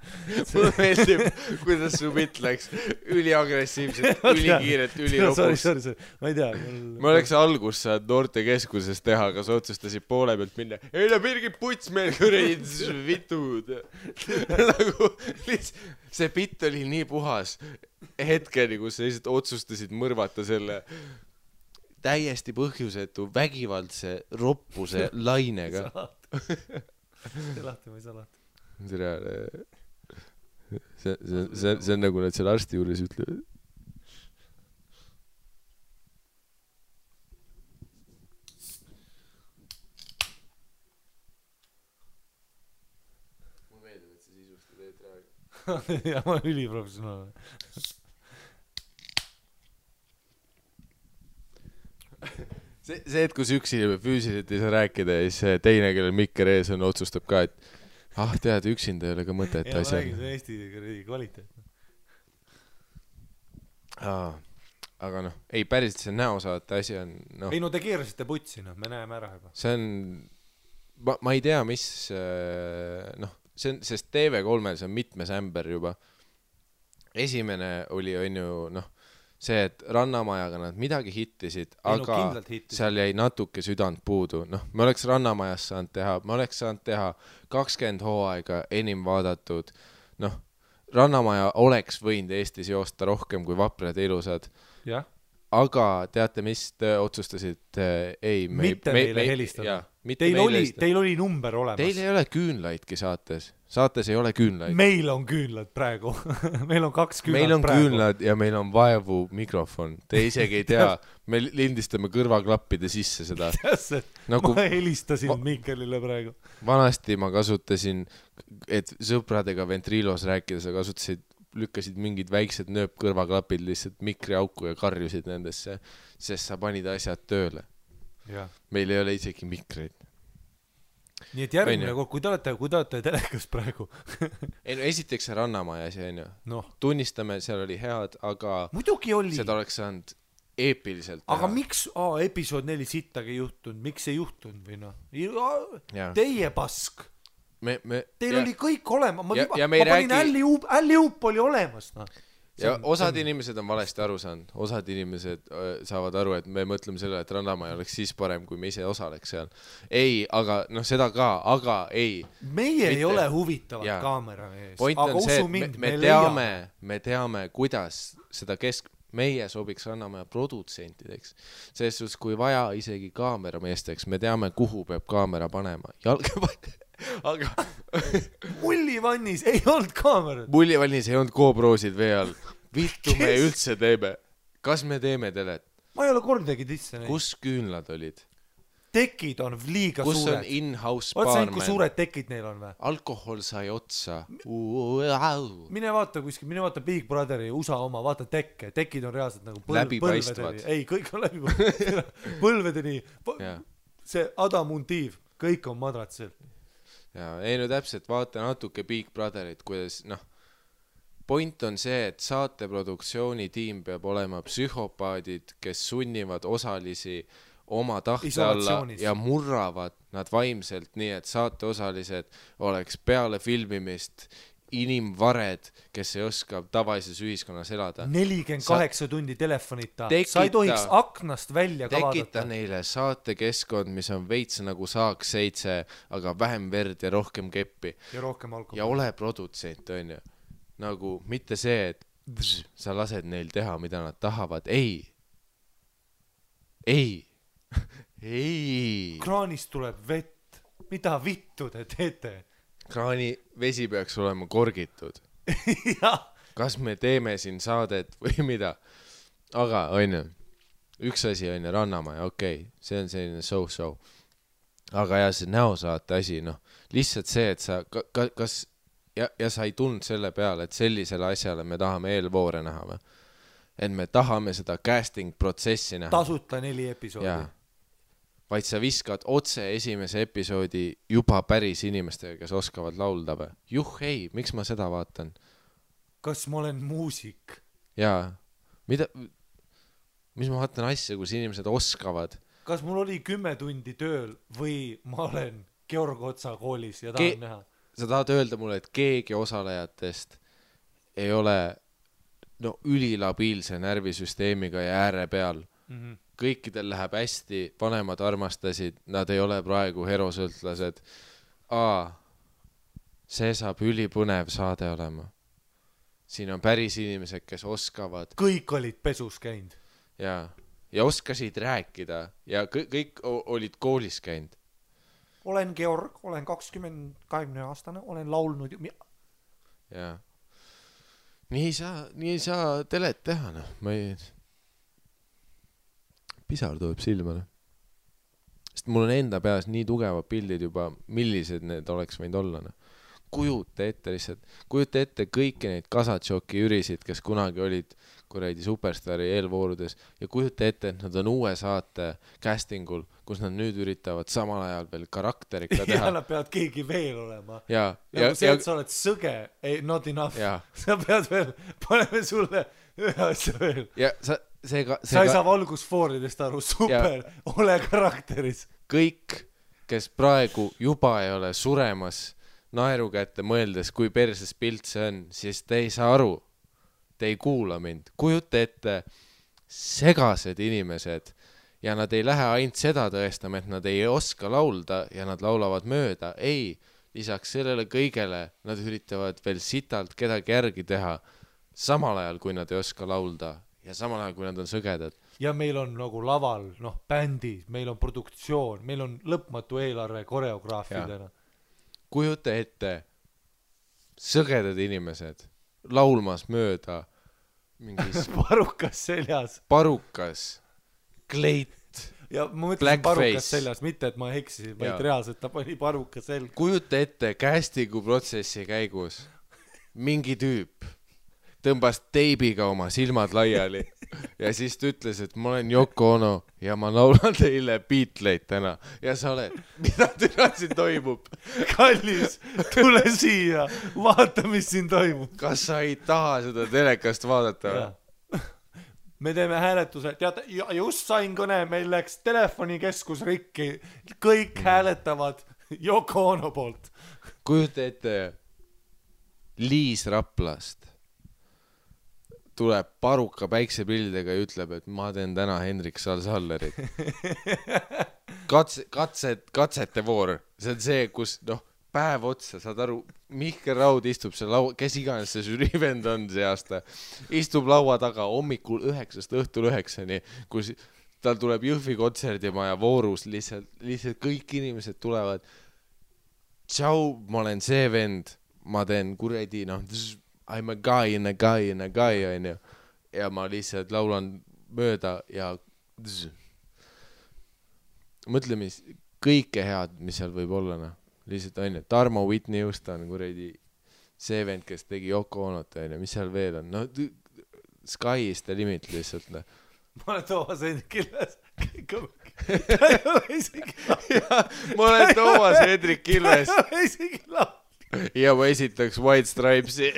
Mulle meeldib, kuidas su bitt läks üliagressiivselt, ülikiirelt, ülilopus. Ma ei tea. Ma oleks algus saad noortekeskuses teha, kas otsustasid poole pealt minna. Ei no Birgit Putsmeel kuradi vitud. Nagu see bitt oli nii puhas hetkeni, kus sa lihtsalt otsustasid mõrvata selle täiesti põhjusetu vägivaldse roppuse lainega. See lahti või salat. See on nagu nad seal arsti juures ütlevad. Mulle meeldib, et see sisusti teed praegu. Ja ma olen üliprofessionaalne. See, et kus üks inimene füüsiliselt ei saa rääkida ja siis teine, kellel mikker ees on, otsustab ka, et tead, üksinda ei ole ka mõtet ja asja. ma räägin, see on Eesti kvaliteet. Aga noh, ei päriselt see näosaate asi on noh. Ei no te keerasite putsi, noh, me näeme ära juba. See on, ma ei tea, mis noh, see on, sest TV3-l see on mitmes ämber juba. Esimene oli ju noh, see, et Rannamajaga nad midagi hittisid, aga seal jäi natuke südant puudu. Noh, me oleks Rannamajas saanud teha, me oleks saanud teha 20 hooaega enim vaadatud. Noh, Rannamaja oleks võinud Eestis joosta rohkem kui Vaprad ja ilusad. Jah. Aga teate, mis te otsustasid? Ei, mitte meile helistada. Teil oli number olemas. Teil ei ole küünlaidki saates. Saates ei ole küünlaid. Meil on küünlad praegu. Meil on 2 küünlad praegu. Meil on küünlad ja meil on vaevu mikrofon. Te isegi ei tea. Me lindistame kõrvaklappide sisse seda. Nagu, ma helistasin Mikelile praegu. Vanasti ma kasutasin, et sõpradega ventriilos rääkides lükkasid mingid väiksed nööpkõrvaklapid lihtsalt mikriauku ja karjusid nendesse, sest sa panid asjad tööle. Ja. Meil ei ole isegi mikreid. Nii et järgmine kord, kui te olete telekas praegu. Ei no esiteks see Rannamaja asi on ju. No. Tunnistame, seal oli head, aga muidugi oli. Seda oleks saanud eepiliselt teha. Aga miks episood 4 sittagi juhtunud? Miks ei juhtunud või noh? Teie pask. Teil oli kõik olema. Ma panin Alli-Up oli olemas. No. Ja osad inimesed on valesti aru saanud. Osad inimesed saavad aru, et me mõtleme selle, et Rannamaja oleks siis parem, kui me ise osaleks seal. Ei, aga noh, seda ka, aga ei. Meie ei ole huvitavad kaamera ees. Point on see, et me teame, kuidas seda meie sobiks Rannamaja produtsentideks. Sest kui vaja isegi kaamerameesteks, me teame, kuhu peab kaamera panema. Aga Mullivannis ei olnud kaamerat. Mullivannis ei olnud GoProsid vee all. Vittu me üldse teeme. Kas me teeme telet? Ma ei ole kordagi tisse neid. Kus küünlad olid? Tekid on liiga kus suured. Kus on in-house barman? Vaat kui suured tekid neil on või? Alkohol sai otsa. Mine vaata kuskil, mine vaata Big Brotheri USA oma, vaata tekke. Tekid on reaalselt nagu läbipaistvad. Ei, kõik on läbipaistvad. Põlvedeni. See adamuntiiv. Kõik on madratsel. Ja, ei no täpselt, vaata natuke Big Brotherit, kuidas, noh, point on see, et saateproduktsiooni tiim peab olema psühhopaadid, kes sunnivad osalisi oma tahte alla ja murravad nad vaimselt nii, et saateosalised oleks peale filmimist inimvared, kes ei oska tavalises ühiskonnas elada. 48 tundi telefonita. Sa ei tohiks aknast välja kavadata. Tekita neile saatekeskkond, mis on veits nagu Saaks 7, aga vähem verd ja rohkem keppi. Ja rohkem alkohol. Ja ole produtsent, on ju. Nagu mitte see, et sa lased neil teha, mida nad tahavad. Ei. Kraanist tuleb vett. Mida vittu te teete? Kraani vesi peaks olema korgitud. Kas me teeme siin saadet või mida? Aga, on ju, üks asi on ju Rannamaja, okei, see on selline so-so. Aga ja see näosaate asi, noh, lihtsalt see, et sa, kas, ja sa ei tundnud selle peale, et sellisele asjale me tahame eelvoore näha või? Et me tahame seda casting protsessi näha. Tasuta 4 episoodi. Jaa. Vaid sa viskad otse esimese episoodi juba päris inimestega, kes oskavad laulda või? Ei, miks ma seda vaatan? Kas ma olen muusik? Jaa. Mis ma vaatan asja, kus inimesed oskavad? kas mul oli 10 tundi tööl või ma olen Georg Otsa koolis ja tahan näha? Sa tahad öelda mulle, et keegi osalejatest ei ole ülilabiilse närvisüsteemiga ja ääre peal. Kõikidel läheb hästi, vanemad armastasid, nad ei ole praegu herosõltlased. See saab ülipõnev saade olema. Siin on päris inimesed, kes oskavad. Kõik olid pesus käinud. Ja oskasid rääkida ja kõik olid koolis käinud. Olen Georg, olen 20 aastane, olen laulnud. Ja. Nii ei saa telet teha, Ma ei... Pisar tuleb silma, Sest mul on enda peas nii tugevad pildid juba, millised need oleks võinud olla, Kujuta ette kõiki neid Kasatšoki ürisid, kes kunagi olid kuradi Superstari eelvoorudes ja kujuta ette, et nad on uue saate castingul, kus nad nüüd üritavad samal ajal veel karakterika teha. Ja nad peavad keegi veel olema. Ja see, et sa oled sõge, not enough. Sa pead veel, paneme sulle ühe asja veel. Ja sa ei saa valgusfooridest aru, super, ole karakteris. Kõik, kes praegu juba ei ole suremas naeru kätte mõeldes, kui perses pilt see on, siis te ei saa aru. Te ei kuula mind. Kujuta ette segased inimesed ja nad ei lähe ainult seda tõestama, et nad ei oska laulda ja nad laulavad mööda. Ei, lisaks sellele kõigele nad üritavad veel sitalt kedagi järgi teha samal ajal, kui nad ei oska laulda ja samal ajal, kui nad on sõgedad. Ja meil on nagu laval, bändid, meil on produktsioon, meil on lõpmatu eelarve koreograafidena. Kujuta ette sõgedad inimesed laulmas mööda mingis parukas, kleit, ja ma mõtlesin parukas seljas, mitte et ma eksisin, vaid reaalselt ta pani parukas selg. Kujuta ette castingu protsessi käigus mingi tüüp tõmbas teibiga oma silmad laiali ja siis ta ütles, et ma olen Yoko Ono ja ma laulan teile Beatleid täna ja sa oled, mida täna siin toimub? Kallis, tule siia, vaata, mis siin toimub. Kas sa ei taha seda telekast vaadata? Me teeme hääletuse, tead, just sain kõne, meil läks telefonikeskus rikki, kõik hääletavad Yoko Ono poolt. Kujuta ette Liis Raplast tuleb paruka päiksepildidega ja ütleb, et ma teen täna Hendrik Salsallerit. Katsete voor. See on see, kus päev otsa, saad aru, Mihkel Raud istub seal laua, kes iganes see žüriivend on see aasta, istub laua taga hommikul 9 õhtul 9, kus tal tuleb Jõhvi kontserdimaja voorus, lihtsalt kõik inimesed tulevad. Tšau, ma olen see vend, ma teen kuredi, I'm a guy in a guy in a guy, ja ma lihtsalt laulan mööda ja mõtle, mis kõike head, mis seal võib olla, lihtsalt on, Tarmo Whitney Houston, kuredi see vend, kes tegi Yoko Onot, mis seal veel on, Sky is the limit lihtsalt, Ma olen Toomas Hendrik Ilves, ta ei ole isegi ma olen Toomas Hendrik Ilves, ta ei ole isegi ja ma esitaks White Stripesi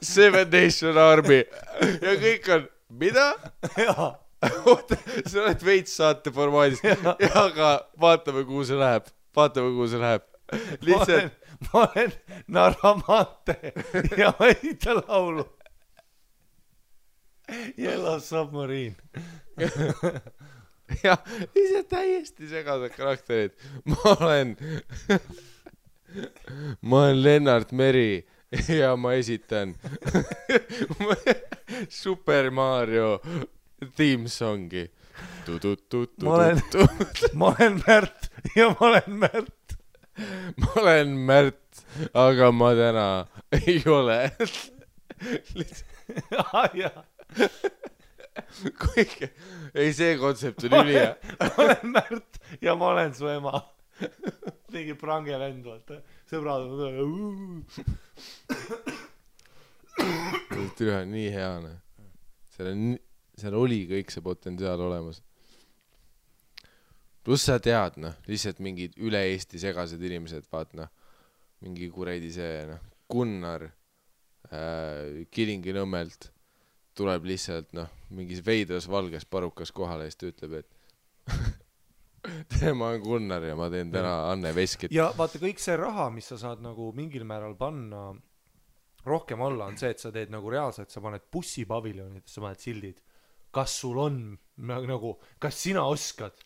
Seven Nation Army ja kõik on, mida? Oota, sa oled veits saate formaadis aga vaatame, kuhu see läheb lihtsalt ma olen Narvamante ja ma esitan laulu Yellow Submarine ja ise täiesti segased karakterid ma olen Lennart Meri ja ma esitan Super Mario theme songi. Ma olen Märt ja ma olen Märt. Ma olen Märt, aga ma täna ei ole. Ei, see kontsept on ülihea. Ma olen Märt ja ma olen su ema. Mingi prange vend, vaata. Sõbrad on Türa on nii heane. Seal oli kõik see potentsiaal olemas. Plus sa tead, lihtsalt mingid üle Eesti segased inimesed, vaat, mingi kuredi see, Gunnar Kilingi-Nõmmelt tuleb lihtsalt, mingis veidras valges parukas kohale ja siis ta ütleb, et ma olen Gunnar ja ma teen täna Anne Veskit. ja vaata kõik see raha, mis sa saad nagu mingil määral panna rohkem alla, on see, et sa teed nagu reaalselt, sa paned bussipaviljonid, sa paned sildid, kas sul on nagu, kas sina oskad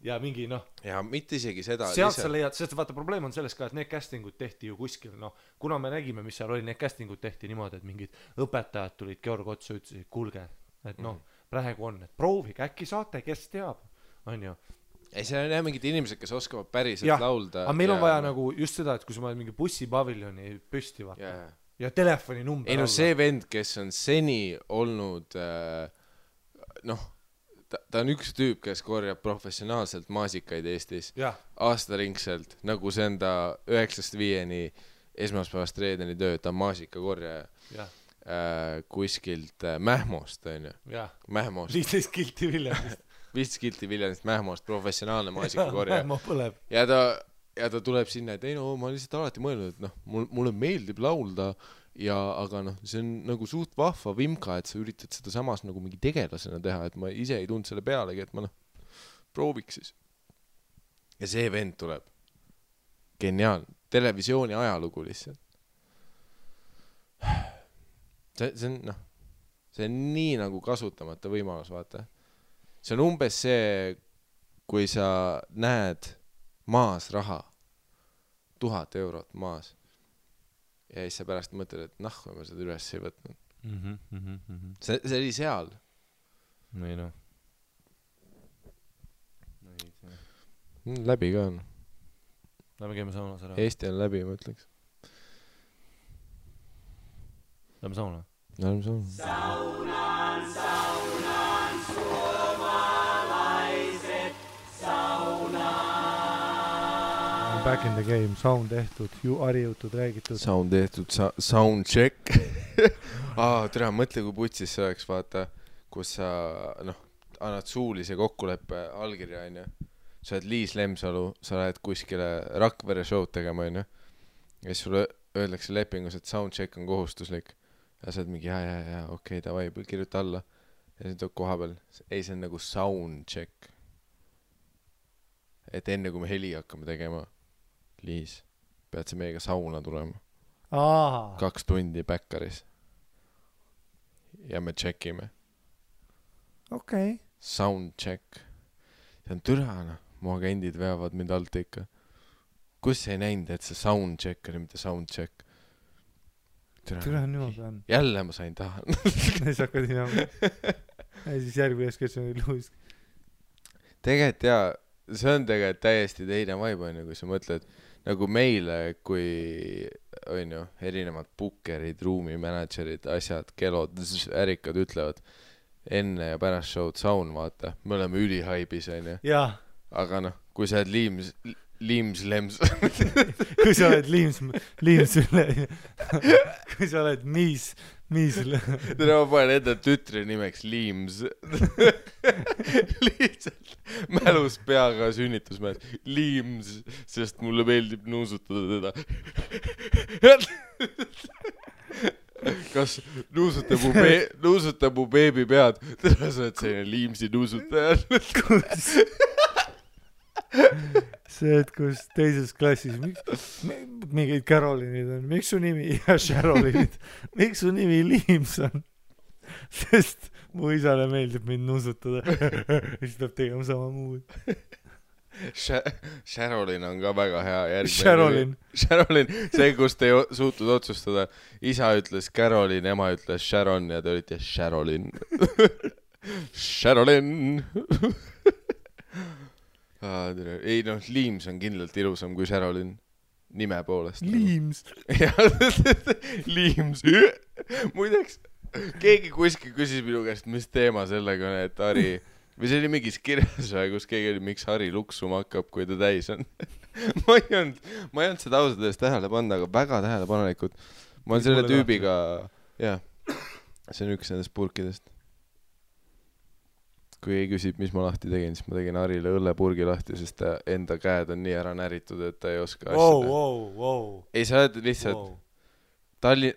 ja mingi ja mitte isegi seda sealt sa leiad, sest vaata probleem on selles ka, et need castingud tehti ju kuskil, kuna me nägime, mis seal oli, need castingud tehti niimoodi, et mingid õpetajad tulid Georg otsa, ütlesid, kuulge, et praegu on, et proovige, äkki saate, kes teab, on ju. Ei, see on jah mingid inimesed, kes oskavad päriselt laulda. Aga meil on vaja nagu just seda, et kui sa paned mingi bussipaviljoni püsti vaata ja telefoni number ei see vend, kes on seni olnud ta on üks tüüp, kes korjab professionaalselt maasikaid Eestis aastaringselt, nagu see on ta 9-5 esmaspäevast reedeni töö, ta on maasikakorjaja kuskilt Mähmost, on ju. Mähmost. 15 kilti Viljandist. 15 kilti Viljandist Mähmost, professionaalne maasikakorjaja. Mähmo põleb. Ja ta tuleb sinna, et ei ma lihtsalt alati mõelnud, et mulle meeldib laulda aga see on nagu suht vahva vimka, et sa üritad seda samas nagu mingi tegelasena teha, et ma ise ei tund selle pealegi, et ma prooviks siis. Ja see vend tuleb. Geniaalne. Televisiooni ajalugu lihtsalt. See on nii nagu kasutamata võimalus, vaata. See on umbes see, kui sa näed maas raha, 1000 eurot maas. Ja siis sa pärast mõtled, et kui ma seda üles ei võtnud. See oli seal. Ei Läbi ka on. Lähme käime saunas ära. Eesti on läbi, ma ütleks. Lähme sauna. Lähme sauna. Saunan, suomalaiset, saunan. Back in the game, sound tehtud, harjutud, räägitud. Sound tehtud, sound check. Tere, mõtle, kui putsis see oleks, vaata, kus sa, annad suulise kokkuleppe allkirja, on ju. Sa oled Liis Lemsalu, sa lähed kuskile Rakvere show'd tegema, on ju. Ja siis sulle öeldakse lepingus, et sound check on kohustuslik. Ja sa oled mingi, okei, davai, kirjuta alla. Ja siis tuleb koha peal. Ei, see on nagu sound check. Et enne, kui me heli hakkame tegema, Liis, pead sa meiega sauna tulema. 2 tundi Bäkkaris. Ja me checkime. Okei. Sound check. See on türana. Mu agendid veavad mind alt ikka. Kus ei näinud, et see sound check oli, mitte sound check? Türana niimoodi on. Jälle ma sain tahan. Siis hakkad hinama. Ja siis järgmine keskel oli Luis. Tegelikult see on tegelikult täiesti teine vibe, on ju, kui sa mõtled nagu meile, kui on ju, erinevad bookerid, ruumimanagerid, asjad, kelod, ärikad ütlevad enne ja pärast show'd sound, vaata. Me oleme ülihaibis, on ju. Jaa. Aga kui sa oled Liims kui sa oled Liims üle kui sa oled Miis Tere, ma panen enda tütri nimeks Liims. Lihtsalt mälus peaga sünnitusmäes Liims, sest mulle meeldib nuusutada teda. Kas nuusutab mu beebi pead? Tere, sa oled selline Liimsi nuusutaja. See, et kus teises klassis mingid Carolinid on, miks su nimi ja Sharolinid, miks su nimi Liims on? Sest mu isale meeldib mind nuusutada. Siis tuleb tegema sama muud. Sharolin on ka väga hea järgmine. Sharolin, see, kus te ei suutud otsustada. Isa ütles Carolin, ema ütles Sharon ja te olite Sharolin. Sharolin. Ei Liims on kindlalt ilusam kui Sharolin nime poolest. Liims. Liims. Muideks, keegi kuskil küsis minu käest, mis teema sellega on, et Harri, või see oli mingis kirjas, kus keegi oli, miks Harri luksuma hakkab, kui ta täis on. ma ei olnud seda ausalt eest tähele panna, aga väga tähelepanelikud. Ma olen selle tüübiga, see on üks nendest purkidest. Kui ei küsib, mis ma lahti tegin, siis ma tegin Harile õllepurgi lahti, sest ta enda käed on nii ära näritud, et ta ei oska asjada. Ei, sa oled lihtsalt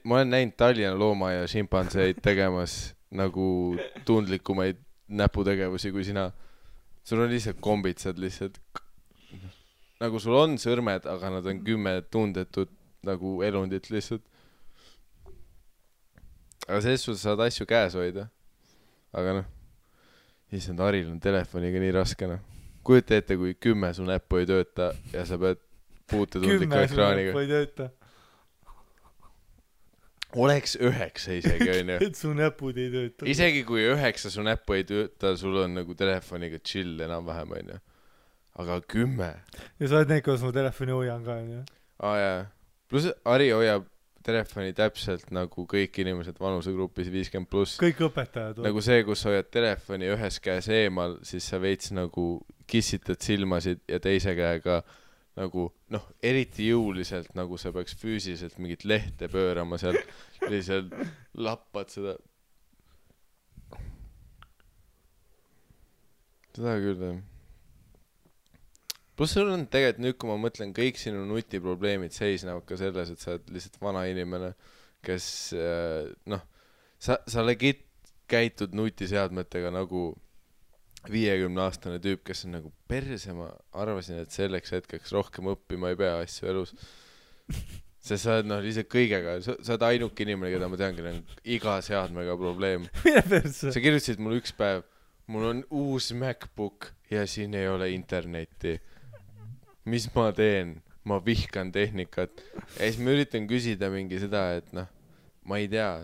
ma olen näinud Tallinna looma ja šimpanseid tegemas nagu tundlikumaid näputegevusi kui sina. Sul on lihtsalt kombitsad lihtsalt. Nagu sul on sõrmed, aga nad on 10 tundetud nagu elundit lihtsalt. Aga selles suhtes saad asju käes hoida. Aga issand, Haril on telefoniga nii raske. Kujuta ette, kui 10 su näppu ei tööta ja sa pead puutetundliku ekraaniga. 10 su näppu ei tööta. Oleks 9 isegi, on ju. Et su näpud ei tööta. Isegi kui 9 su näppu ei tööta, sul on nagu telefoniga chill enam-vähem, on ju. Aga 10. Ja sa oled need, kuidas ma telefoni hoian ka, on ju. Jaa. Plus Hari hoiab telefoni täpselt nagu kõik inimesed vanusegrupis 50+. Kõik õpetajad. Nagu see, kus sa hoiad telefoni ühes käes eemal, siis sa veits nagu kissitad silmasid ja teise käega nagu, eriti jõuliselt, nagu sa peaks füüsiliselt mingit lehte pöörama seal, lihtsalt lappad seda. Seda küll, Plus sul on tegelikult nüüd, kui ma mõtlen, kõik sinu nutiprobleemid seisnevad ka selles, et sa oled lihtsalt vana inimene, kes, sa legit käitud nutiseadmetega nagu 50-aastane tüüp, kes on nagu perse, ma arvasin, et selleks hetkeks rohkem õppima ei pea asju elus. Sest sa oled lihtsalt kõigega, sa oled ainuke inimene, keda ma tean, keda on iga seadmega probleem. Sa kirjutasid mul üks päev, mul on uus MacBook ja siin ei ole internetti. Mis ma teen? Ma vihkan tehnikat. Ja siis ma üritan küsida mingi seda, et ma ei tea,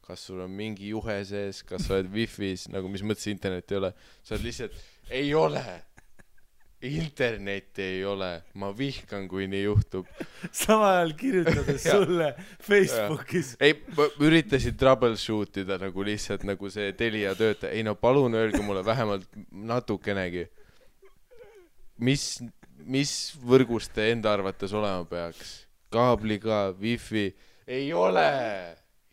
kas sul on mingi juhe sees, kas sa oled wifi's, nagu mis mõttes internet ei ole. Sa oled lihtsalt, ei ole. Internetti ei ole. Ma vihkan, kui nii juhtub. Sama ajal kirjutades sulle Facebookis. Ei, ma üritasin troubleshootida nagu lihtsalt nagu see Telia töötaja. Ei palun öelge mulle vähemalt natukenegi. Mis võrgust te enda arvates olema peaks? Kaabliga, wifi? Ei ole!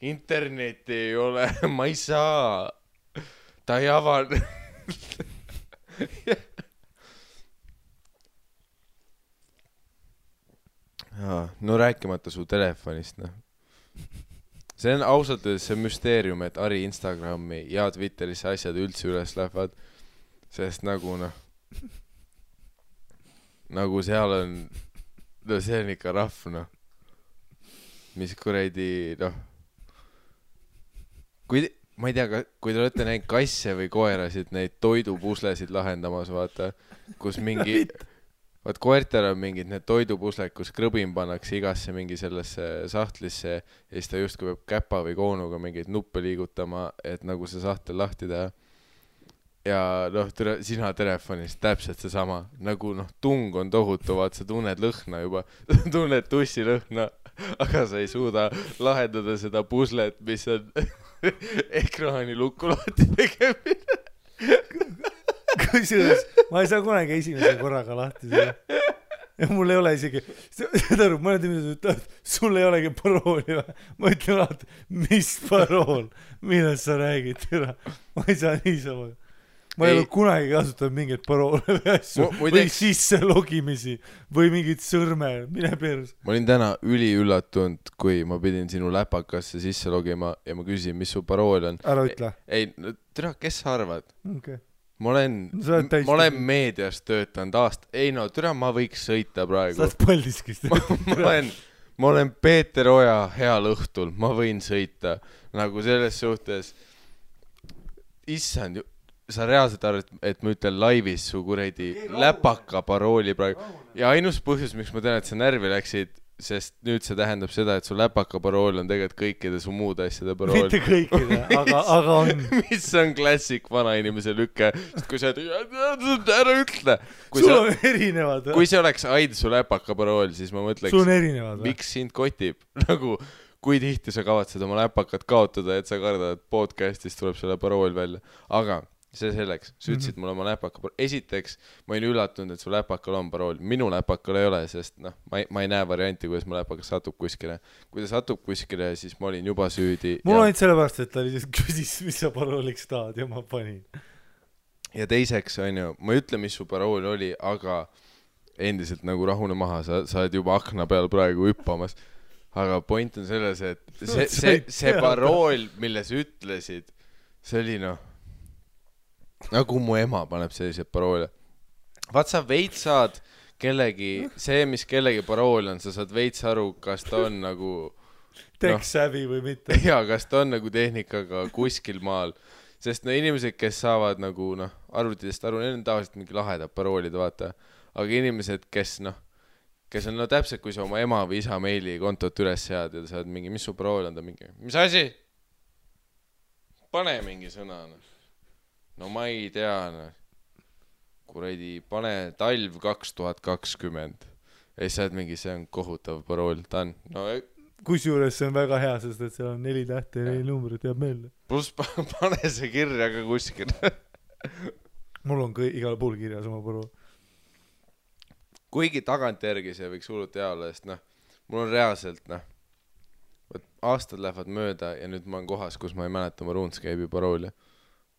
Internetti ei ole, ma ei saa. Ta ei avan. No rääkimata su telefonist, See on ausalt öeldes see müsteerium, et Hari Instagrami ja Twitterisse asjad üldse üles lähevad, sest nagu seal on, see on ikka rahv, mis kuradi, ma ei tea, kui te olete näinud kasse või koerasid, neid toidupuslesid lahendamas, vaata, kus mingi, vaat koertel on mingid need toidupusled, kus krõbim pannakse igasse mingi sellesse sahtlisse ja siis ta justkui peab käpa või koonuga mingeid nuppe liigutama, et nagu see sahtel lahti teha. Ja sina telefonis täpselt see sama, nagu tung on tohutu, vaat sa tunned lõhna juba, tunned tussi lõhna, aga sa ei suuda lahendada seda puslet, mis on ekraani lukku lahti tegemine. Kusjuures, ma ei saa kunagi esimese korraga lahti seda. Ja mul ei ole isegi, seda aru, mõned inimesed ütlevad, sul ei olegi parooli või? Ma ütlen alati, mis parool, millest sa räägid, ma ei saa niisama. Ma ei ole kunagi kasutanud mingeid paroole või asju või sisse logimisi või mingid sõrme, mine pers. Ma olin täna üliüllatunud, kui ma pidin sinu läpakasse sisse logima ja ma küsisin, mis su parool on. Ära ütle. Ei, kes sa arvad? Okay. Ma olen meedias töötanud aasta. Ei ma võiks sõita praegu. Sa oled Paldiskist. ma olen Peeter Oja heal õhtul. Ma võin sõita. Nagu selles suhtes. Issand, sa reaalselt arvad, et ma ütlen laivis su kuredi läpaka parooli praegu. Ja ainus põhjus, miks ma tean, et sa närvi läksid, sest nüüd see tähendab seda, et su läpaka parool on tegelikult kõikide su muud asjade parool. Mitte kõikide, aga on. Mis on klassik vana inimese lükke, kui sa ära ütle. Sul on erinevad. Kui see oleks aid su läpaka parool, siis ma mõtleks, sul on erinevad. Miks sind kotib? Nagu, kui tihti sa kavatsed oma läpakat kaotada, et sa kardad, et podcastist tuleb selle parool välja. Aga see selleks, sa ütlesid mulle oma läpaka parool. Esiteks, ma olin üllatunud, et su läpakal on parool. Minu läpakal ei ole, sest ma ei näe varianti, kuidas mu läpakas satub kuskile. Kui ta satub kuskile, siis ma olin juba süüdi. Mul on sellepärast, et ta lihtsalt küsis, mis sa parooliks tahad ja ma panin. Ja teiseks, ma ei ütle, mis su parool oli, aga endiselt nagu rahune maha, sa oled juba akna peal praegu hüppamas. Aga point on selles, et see parool, mille sa ütlesid, see oli nagu mu ema paneb selliseid paroole. Vaat sa veits saad kellegi, see mis kellegi parool on, sa saad veits aru, kas ta on nagu tech-savvy või mitte. Ja kas ta on nagu tehnikaga kuskil maal, sest inimesed, kes saavad nagu arvutidest aru, neil on tavaliselt mingi lahedad paroolid, vaata, aga inimesed, kes on täpselt, kui sa oma ema või isa meili kontot üles sead ja sa saad mingi, mis su parool on, ta mingi, mis asi? Pane mingi sõna, no ma ei tea, kuradi, pane talv 2020 ja siis saad mingi, see on kohutav parool, ta on kusjuures see on väga hea, sest et seal on 4 tähte ja 4 numbrit jääb meelde. Plus pane see kirja ka kuskil. Mul on igal pool kirjas oma parool. Kuigi tagantjärgi see võiks hullult hea olla, sest mul on reaalselt aastad lähevad mööda ja nüüd ma olen kohas, kus ma ei mäleta oma RuneScape'i parooli,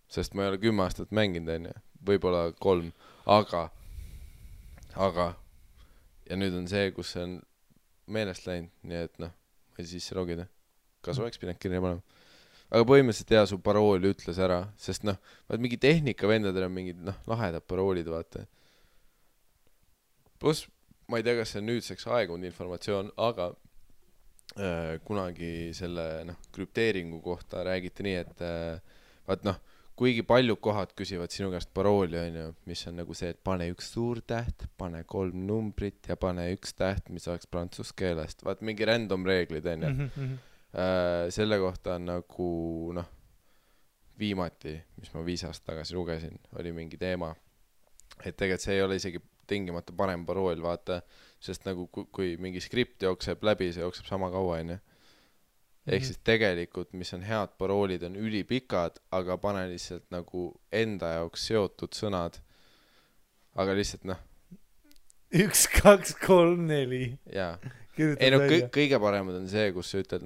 sest ma ei ole 10 aastat mänginud, võib-olla 3, aga ja nüüd on see, kus see on meelest läinud, nii et ma ei sisse logida, kas oleks pidanud kirja panema, aga põhimõtteliselt su parooli ütles ära, sest vaat mingi tehnikavendadel on mingid lahedad paroolid, vaata. Plus ma ei tea, kas see on nüüdseks aegunud informatsioon, aga kunagi selle krüpteeringu kohta räägiti nii, et vaat kuigi paljud kohad küsivad sinu käest parooli, mis on nagu see, et pane 1 suur täht, pane 3 numbrit ja pane 1 täht, mis oleks prantsuse keelest. Vaat mingi random reeglid, selle kohta on nagu, viimati, mis ma 5 aastat tagasi lugesin, oli mingi teema, et tegelikult see ei ole isegi tingimata parem parool, vaata, sest nagu kui mingi skript jookseb läbi, see jookseb sama kaua, ehk siis tegelikult, mis on head paroolid, on ülipikad, aga pane lihtsalt nagu enda jaoks seotud sõnad. Aga lihtsalt 1, 2, 3, 4. Jaa. Ei kõige paremad on see, kus sa ütled,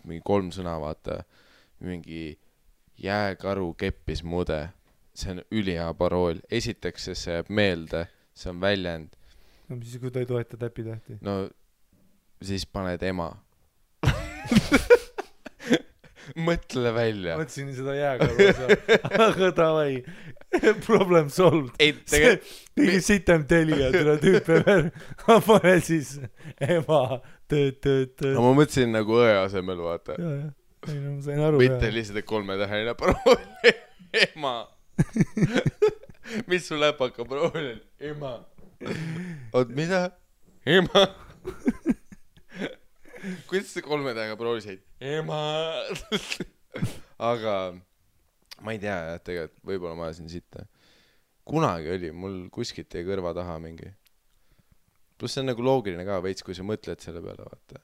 mingi 3 sõna, vaata, mingi jääkaru keppis mude. See on ülihea parool. Esiteks, see jääb meelde, see on väljend. No mis siis, kui ta ei toeta täpitähti? No siis paned ema. Mõtle välja. Mõtlesin seda jääkaru osa. Aga davai. Problem solved. Mingi sitem telija, tule tüüpe veel. Pane siis ema. No ma mõtlesin nagu õe asemel, vaata. Ja. Ei, no ma sain aru. Mitte lihtsalt 3-täheline parool. Ema. Mis su läpaka parool on? Ema. Oot, mida? Ema. Kuidas see 3-tähega parool said? Ema. Aga ma ei tea, tegelikult võib-olla ma ajasin sitta. Kunagi oli, mul kuskilt jäi kõrva taha mingi. Plus see on nagu loogiline ka veits, kui sa mõtled selle peale, vaata.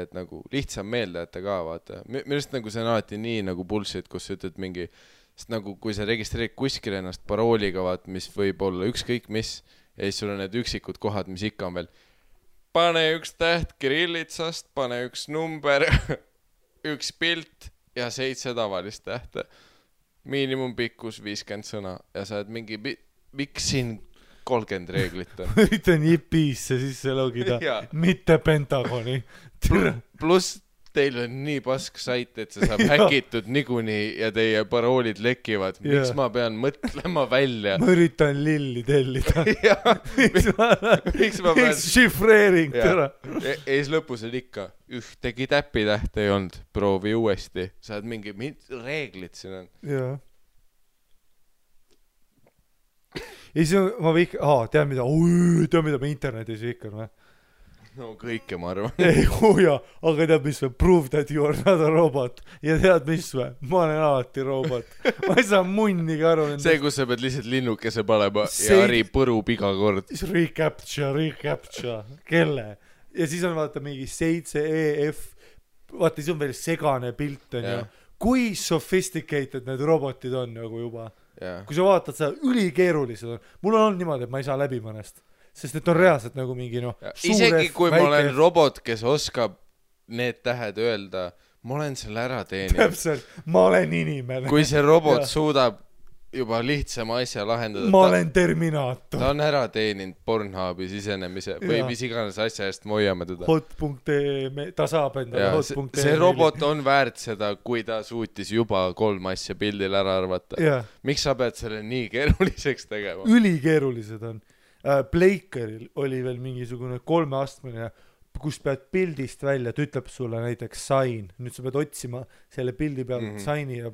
Et nagu lihtsam meelde jätta ka, vaata. Millest nagu see on alati nii nagu bullshit, kus sa ütled mingi, sest nagu kui sa registreerid kuskil ennast parooliga, vaat, mis võib olla ükskõik mis, ja siis sul on need üksikud kohad, mis ikka on veel. Pane 1 täht kirillitsast, pane 1 number, 1 pilt ja 7 tavalist tähte. Miinimumpikkus 50 sõna ja sa oled mingi, miks siin 30 reeglit on? Üritan JP-sse sisse logida, mitte Pentagoni. Plus teil on nii pask sait, et see saab häkitud niikuinii ja teie paroolid lekivad. Miks ma pean mõtlema välja? Ma üritan lilli tellida. Miks ma pean... Šifreering täna. Ees lõpus on ikka ühtegi täpitähte ei olnud. Proovi uuesti. Sa oled mingi reeglid siin on. Jaa. Ei, see on, ma võik... tead mida ma internetis viikan või? No kõike ma arvan. Ei, aga tead mis või? Prove that you are not a robot. Ja tead mis või? Ma olen alati robot. Ma ei saa munnigi aru. See, kus sa pead lihtsalt linnukese panema ja Ari põrub iga kord. Recapture. Kelle? Ja siis on vaata mingi 7EF. Vaata, siis on veel segane pilt. Kui sophisticated need robotid on nagu juba. Kui sa vaatad seda, ülikeerulised on. Mul on niimoodi, et ma ei saa läbi mõnest. Sest et on reaalselt nagu mingi isegi kui ma olen robot, kes oskab need tähed öelda, ma olen selle ära teeninud. Täpselt, ma olen inimene. Kui see robot suudab juba lihtsama asja lahendada. Ma olen Terminaator. Ta on ära teeninud Pornhubi sisenemise või mis iganes asja eest me hoiame teda. Hot.ee, ta saab endale Hot.ee. See robot on väärt seda, kui ta suutis juba 3 asja pildil ära arvata. Miks sa pead selle nii keeruliseks tegema? Ülikeerulised on. Blakeril oli veel mingisugune 3-astmeline, kus pead pildist välja, ta ütleb sulle näiteks sign. Nüüd sa pead otsima selle pildi peale sign'i ja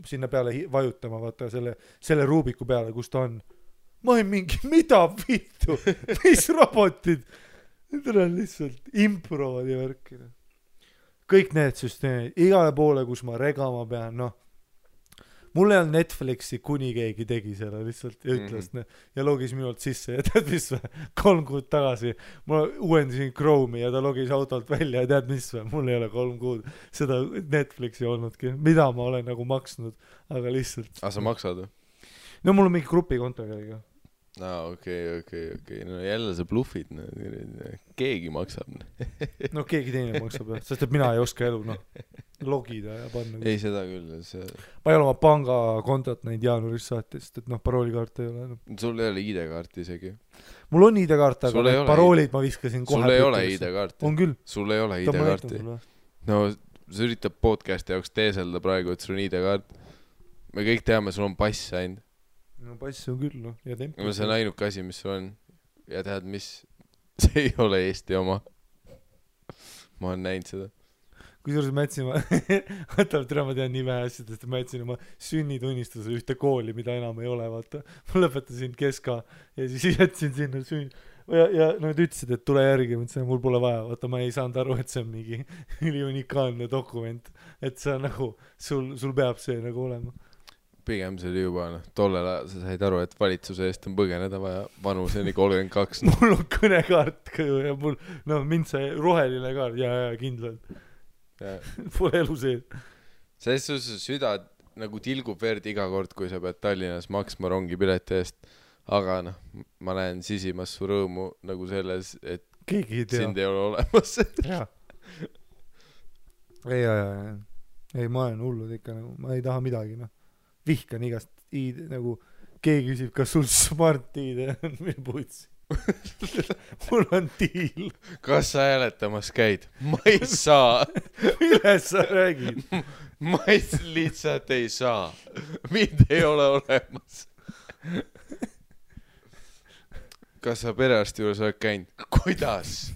sinna peale vajutama, vaata selle ruubiku peale, kus ta on. Ma olen mingi, mida vittu? Mis robotid? Need on lihtsalt improvad ja värkida. Kõik need süsteemid, igale poole, kus ma regama pean, noh. Mul ei olnud Netflixi, kuni keegi tegi selle lihtsalt ja ütles ja logis minult sisse ja tead mis või? 3 kuud tagasi ma uuendasin Chrome'i ja ta logis autolt välja ja tead mis või? Mul ei ole 3 kuud seda Netflixi olnudki, mida ma olen nagu maksnud, aga lihtsalt. Sa maksad või? No mul on mingi grupikonto kellega. Okei. No jälle sa bluffid, keegi maksab. No keegi teine maksab, sest et mina ei oska elu, logida ja panna. Ei, seda küll. Ma ei ole oma pangakontot näinud jaanuaris saati, sest et paroolikaart ei ole. Sul ei ole ID-kaarti isegi. Mul on ID-kaart, aga need paroolid ma viskasin kohe. Sul ei ole ID-kaarti. On küll. Sul ei ole ID-kaarti. No, sa üritab podcasti jaoks teeselda praegu, et sul on ID-kaart. Me kõik teame, sul on pass ainult. No pass on küll, ja tempo. See on ainuke asi, mis sul on. Ja tead, mis? See ei ole Eesti oma. Ma olen näinud seda. Kusjuures ma jätsin, ma tean nii vähe asjadest, ma jätsin oma sünnitunnistuse ühte kooli, mida enam ei ole, vaata. Ma lõpetasin keska ja siis jätsin sinna ja nad ütlesid, et tule järgi, mõtlesin, mul pole vaja, vaata, ma ei saanud aru, et see on mingi üliunikaalne dokument, et see on nagu, sul peab see nagu olema. Pigem see oli juba, tollel ajal sa said aru, et valitsuse eest on põgeneda vaja vanuseni 32. Mul on kõnekaart ja mul, mind see roheline kaart, ja kindlalt. Pole elu sees. Selles süda nagu tilgub verd iga kord, kui sa pead Tallinnas maksma rongipileti eest. Aga ma näen sisimas su rõõmu nagu selles, et sind ei ole olemas. Ei, ma olen hullud ikka, ma ei taha midagi, vihkan igast ID, nagu keegi küsib, kas sul smart ID on, mil puitsi. Mul on diil. Kas sa hääletamas käid? Ma ei saa. Milles sa räägid? Ma lihtsalt ei saa. Mind ei ole olemas. Kas sa perearsti juures oled käinud? Kuidas?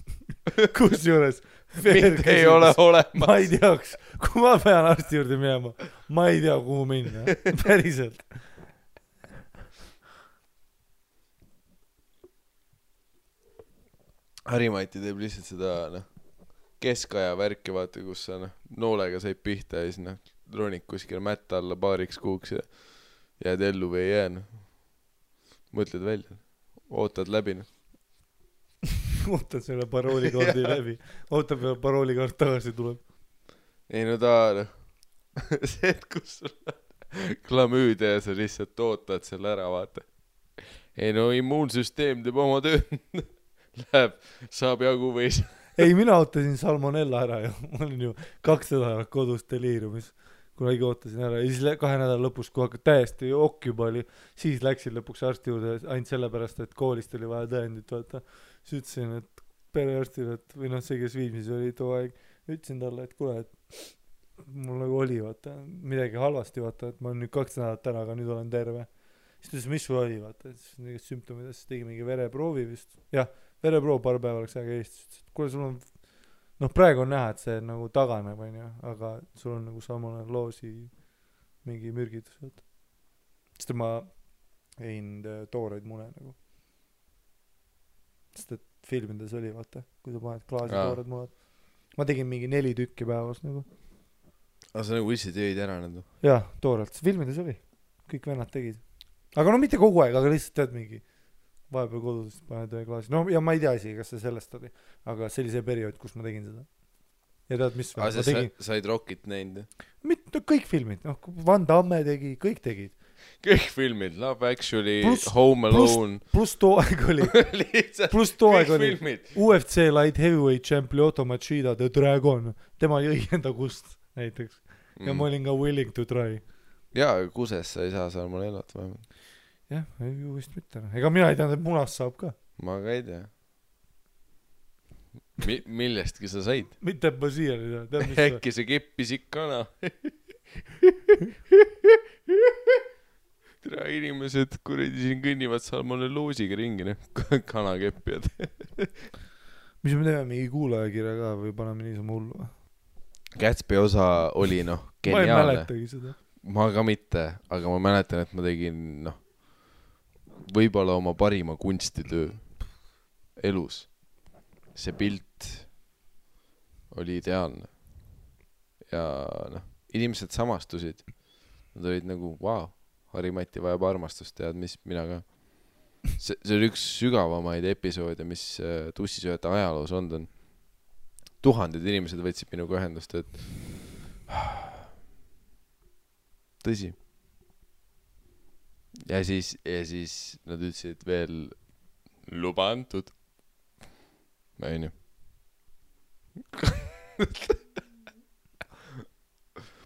Kus juures? Mind ei ole olemas. Ma ei teaks, kui ma pean arsti juurde minema, ma ei tea, kuhu minna. Päriselt. Harimati teeb lihtsalt seda keskaja värki, vaata, kus sa noolega said pihta ja siis ronik kuskil mätta alla paariks kuuks ja jääd ellu või ei jää. Mõtled välja. Ootad läbi. Ootad selle paroolikaardi läbi. Ootab ja paroolikaart tagasi tuleb. Ei ta see, et kus sul klamüüde ja sa lihtsalt ootad selle ära, vaata. Ei immuunsüsteem teeb oma töö. Läheb, saab jagu või Ei, mina ootasin salmonella ära ja ma olin ju 2 nädalat kodus deliiriumis, kunagi ootasin ära ja siis 2 nädala lõpus, kui hakka täiesti okk juba oli, siis läksin lõpuks arsti juurde ainult sellepärast, et koolist oli vaja tõendit, vaata. Siis ütlesin, et perearstile, et või see, kes viimsis oli too aeg, ütlesin talle, et kuule, et mul nagu oli, vaata, midagi halvasti, vaata, et ma olen nüüd 2 nädalat ära, aga nüüd olen terve. Siis ta ütles, mis sul oli, vaata, et siis need sümptomid, siis tegi mingi vereproovi vist. Jah, vereproov paar päeva oleks aega Eestis. Kuule, sul on, praegu on näha, et see nagu taganeb, aga sul on nagu samane loosi mingi mürgitus, vaata. Sest ma ein tooreid mune nagu. Sest et filmides oli, vaata, kui sa paned klaasi toored munad. Ma tegin mingi 4 tükki päevas nagu. Aga sa nagu ise tegid ära nende? Jah, toorelt. Filmides oli. Kõik vennad tegid. Aga mitte kogu aeg, aga lihtsalt tead mingi vahepeal kodus paned klaasi. Ja ma ei tea isegi, kas see sellest oli. Aga see oli see periood, kus ma tegin seda. Ja tead, mis ma tegin? Said Rockit näinud? Kõik filmid. Van Damme tegi, kõik tegid. Kõik filmid, Love Actually, Home Alone. Plus too aeg oli. Plus too aeg oli. UFC Light Heavyweight Champion Lyoto Machida The Dragon. Tema jõi enda kust näiteks. Ja ma olin ka willing to try. jaa, kuses sa ei saa salmonellat vähemalt. jah, ju vist mitte. Ega mina ei teadnud, et munast saab ka. Ma ka ei tea. Millestki sa said? Mitte ma siiani ei tea. Äkki see keppisik kana. Tere inimesed, kuradi siin kõnnivad salmonelloosiga ringi, kanakeppijad. Mis me teeme, mingi kuulajakirja ka või paneme niisama hullu? Gatsby osa oli geniaalne. Ma ei mäletagi seda. Ma ka mitte, aga ma mäletan, et ma tegin võib-olla oma parima kunstitöö elus. See pilt oli ideaalne. Ja inimesed samastusid. Nad olid wow, Harri-Mati vajab armastust, tead mis, mina ka. See oli üks sügavamaid episoode, mis tussisööjate ajaloos on. Tuhanded inimesed võtsid minuga ühendust, et tõsi. Ja siis nad ütlesid veel luba antud. Ma ei nii.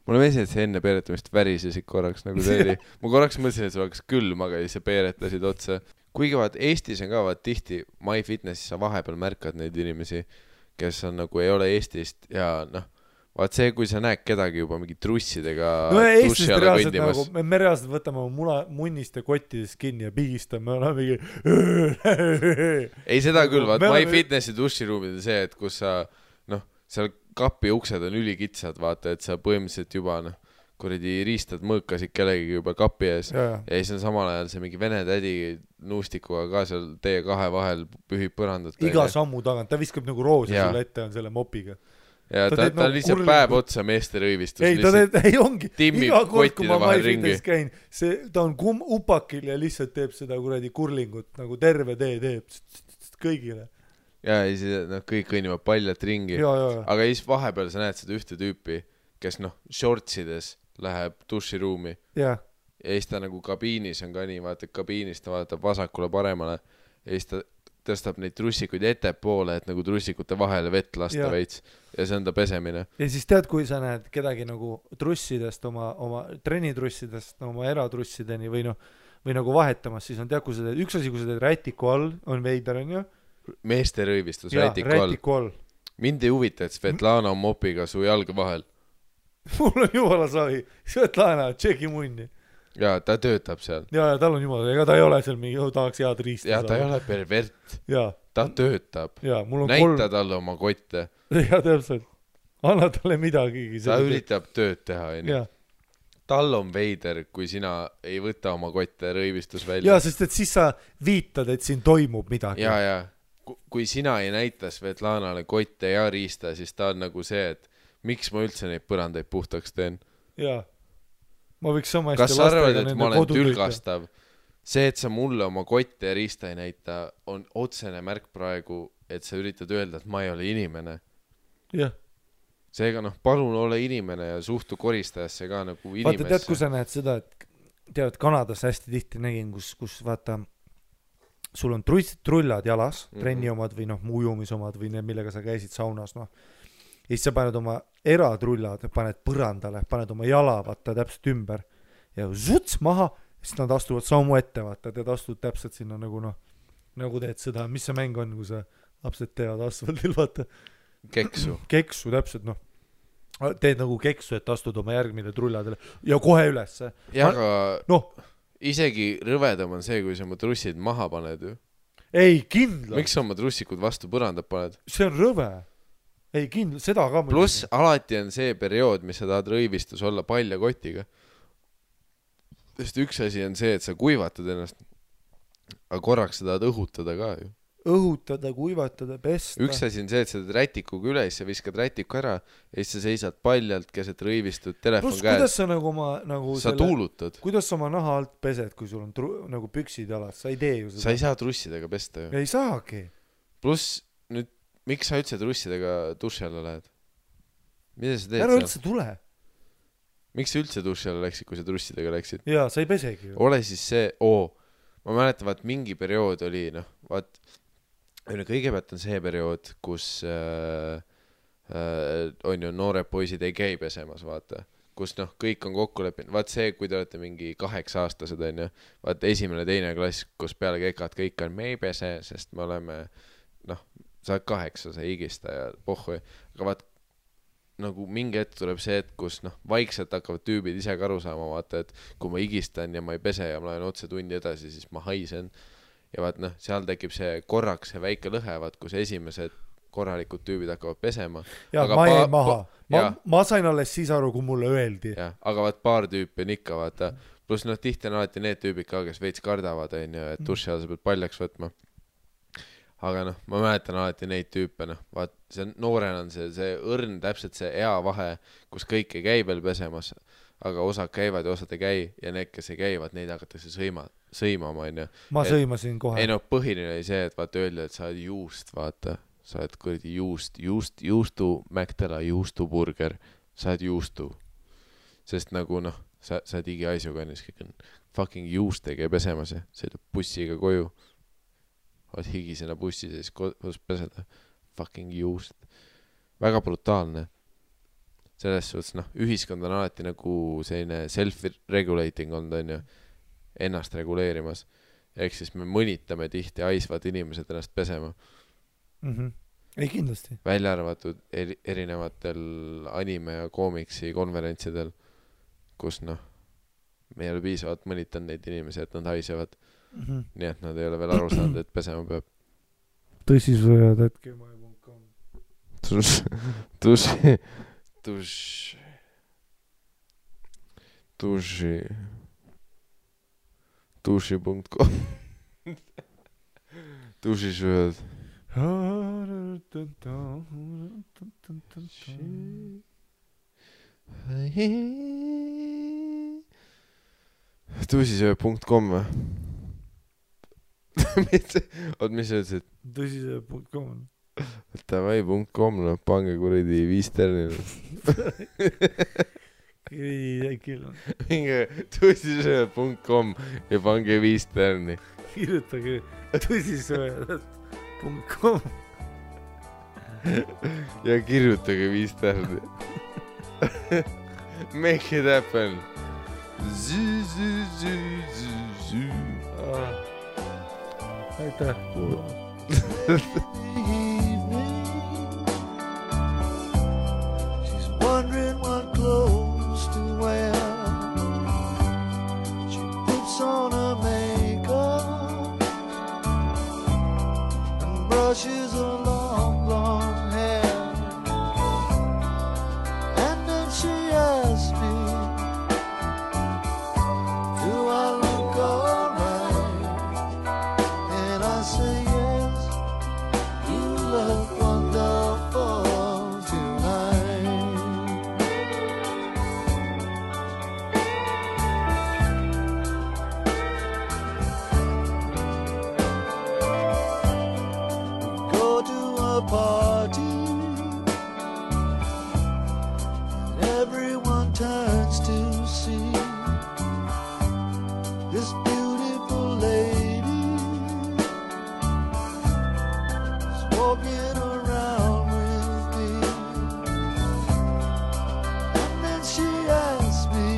Mulle meeldi, et see enne peeretamist värisesid korraks nagu see oli. Ma korraks mõtlesin, et see oleks külm, aga siis peeretasid otsa. Kuigi Eestis on ka tihti MyFitnessis sa vahepeal märkad neid inimesi, kes on ei ole Eestist ja vaat see, kui sa näed kedagi juba mingi trussidega Eestist reaalselt me reaalselt võtame munniste kottidest kinni ja pigistame mingi ei seda küll, vaat MyFitnessi duširuumid on see, et kus sa seal kapi uksed on ülikitsad, vaata, et sa põhimõtteliselt juba kuradi riistad mõõkasid kellegi juba kapi ees ja siis on samal ajal see mingi vene tädi nuustikuga ka seal teie kahe vahel pühib põrandat. Iga sammu tagant, ta viskab nagu roosi sulle ette on selle mopiga. Ja ta lihtsalt päev otsa meeste rõivistus. Ei ongi, iga kord kui ma MyFitnessis käin, ta on upakil ja lihtsalt teeb seda kuradi kurlingut, nagu terve tee teeb kõigile. Ja siis kõik kõnnivad paljalt ringi. Aga siis vahepeal sa näed seda ühte tüüpi, kes shortsides läheb duširuumi. Ja siis ta kabiinis on ka nii, vaata, kabiinis ta vaatab vasakule paremale ja siis ta tõstab neid trussikuid ettepoole, et trussikute vahele vett lasta veits ja see on ta pesemine. Ja siis tead, kui sa näed kedagi trussidest, oma trenitrussidest, oma eratrussideni või vahetamas, siis on tead, kui sa teed, üks asi, kui sa teed rätiku all, on veider, on ju? Meeste rõivistus rätiku all. Mind ei huvita, et Svetlana on mopiga su jalga vahel. Mul on jumala savi. Svetlana, tšeki munni. Ja ta töötab seal. Ja tal on jumala, ega ta ei ole seal mingi, tahaks head riista. Ja ta ei ole pervert. Ta töötab. Näita talle oma kotte. Ja täpselt. Anna talle midagi. Ta üritab tööd teha. Tal on veider, kui sina ei võta oma kotte rõivistus välja. Ja, sest et siis sa viitad, et siin toimub midagi. Ja. Kui sina ei näita Svetlanale kotte ja riista, siis ta on see, et miks ma üldse neid põrandaid puhtaks teen. Ja. Ma võiks sama hästi kas sa arvad, et ma olen tülgastav? See, et sa mulle oma kotte ja riista ei näita, on otsene märk praegu, et sa üritad öelda, et ma ei ole inimene. Jah. Seega palun ole inimene ja suhtu koristajasse ka inimesse. Vaata, tead, kui sa näed seda, et tead, Kanadas hästi tihti nägin, kus vaata, sul on trullad jalas, trenni omad või ujumisomad või need, millega sa käisid saunas, ja siis sa paned oma eratrullad, paned põrandale, paned oma jala, vaata, täpselt ümber ja zuts maha, siis nad astuvad sammu ette, vaata, tead, astud täpselt sinna nagu teed seda, mis see mäng on, kui sa lapsed teevad asfaldil, vaata. Keksu, täpselt, teed nagu keksu, et astud oma järgmine trulladele ja kohe üles. Ja aga isegi rõvedam on see, kui sa oma trussid maha paned ju. Ei, kindla. Miks sa oma trussikud vastu põrandab paned? See on rõve. Ei, kindla, seda ka. Plus alati on see periood, mis sa tahad rõivistus olla palja kotiga. Sest üks asi on see, et sa kuivatad ennast, aga korraks sa tahad õhutada ka ju. Õhutada, kuivatada, pesta. Üks asi on see, et sa teed rätikuga üle, siis sa viskad rätiku ära ja siis sa seisad paljalt keset rõivistud telefon käes. Kuidas sa sa tuulutad? Kuidas sa oma naha alt pesed, kui sul on püksid jalas? Sa ei tee ju seda. Sa ei saa trussidega pesta ju. Ei saagi. Plus, nüüd, miks sa üldse trussidega duši alla lähed? Mida sa teed seal? Ära üldse tule. Miks sa üldse duši alla läksid, kui sa trussidega läksid? Jaa, sa ei pesegi ju. Ole siis see, ma mäletan, vaat mingi periood oli, vaat kõigepealt on see periood, kus on ju noored poisid ei käi pesemas, vaata. kus noh, kõik on kokku leppinud, vaat see, kui te olete mingi 8-aastased onju, vaat 1.-2. klass, kus peale kekat kõik on, me ei pese, sest me oleme noh, sa oled 8, sa ei higista ja pohhu, aga vaat nagu mingi hetk tuleb see, et kus noh, vaikselt hakkavad tüübid ise ka aru saama, vaata, et kui ma higistan ja ma ei pese ja ma lähen otse tundi edasi, siis ma haisen ja vaat noh, seal tekib see korraks see väike lõhe, vaat kus esimesed korralikud tüübid hakkavad pesema. Ja aga ma jäin maha. Ma sain alles siis aru, kui mulle öeldi. Ja, aga vaat paar tüüpi on ikka, vaata. Plus noh, tihti on alati need tüübid ka, kes veits kardavad, et duši all sa pead paljaks võtma. Aga noh, ma mäletan alati neid tüüpe, noh, vaat see noorena on see õrn, täpselt see ea vahe, kus kõik ei käi veel pesemas, aga osad käivad ja osad ei käi ja need, kes ei käivad, neid hakatakse sõimama, on ju. Ma sõimasin kohe. Ei no, põhiline oli see, et vaata öelda, et sa oled juust, vaata. Sa oled kuradi juustu Mäktela juustuburger, sa oled juustu. Sest nagu noh, sa oled igiaisuga ennast kõik on fucking juustega ja pesemas ja sõidab bussiga koju. Oled higisena bussis ja siis kodus peseda. Fucking juust. Väga brutaalne. Selles suhtes noh, ühiskond on alati nagu selline self-regulating on ju, ennast reguleerimas. Ehk siis me mõnitame tihti aisvad inimesed ennast pesema. Ei kindlasti. Välja arvatud erinevatel anime ja koomiksi konverentsidel, kus noh, me ei ole piisavalt mõnitanud neid inimesi, et nad haisevad. Nii et nad ei ole veel aru saanud, et pesema peab. Tõsisvõjad, hetke.com Duši.com Dušisvõjad Tõsisöö.com või? Mis sa ütlesid? Tõsisöö.com Tavai.com, no pange kuradi 5 tärnil. Minge tõsisöö.com ja pange 5 tärni. Kirjutage tõsisöö.com ja kirjutage 5 tärni. Make it happen. Aitäh. She's wondering what clothes to wear. She puts on her makeup and brushes her long blonde hair. And then she asks me, do I look alright? And I say yes, you look wonderful tonight. We go to a party and everyone turns to see this beautiful lady is walking around with me. And then she asks me,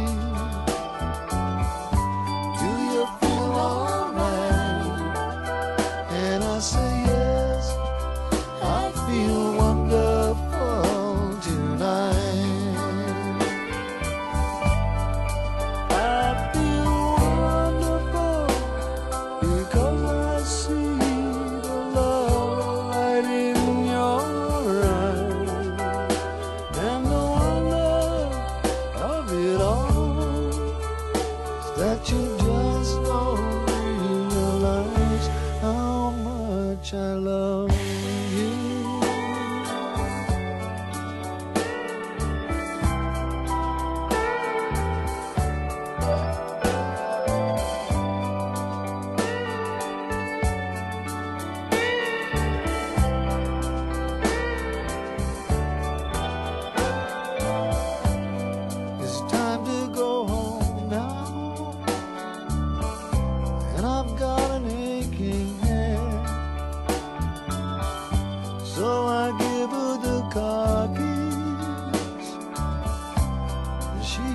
do you feel alright? And I say yes, I feel wonderful tonight. I feel wonderful because I see the love light in your eyes, and the wonder of it all is that you just don't realize how much I love you. It's time to go home now, and I've got an aching head. So I give her the car keys, and she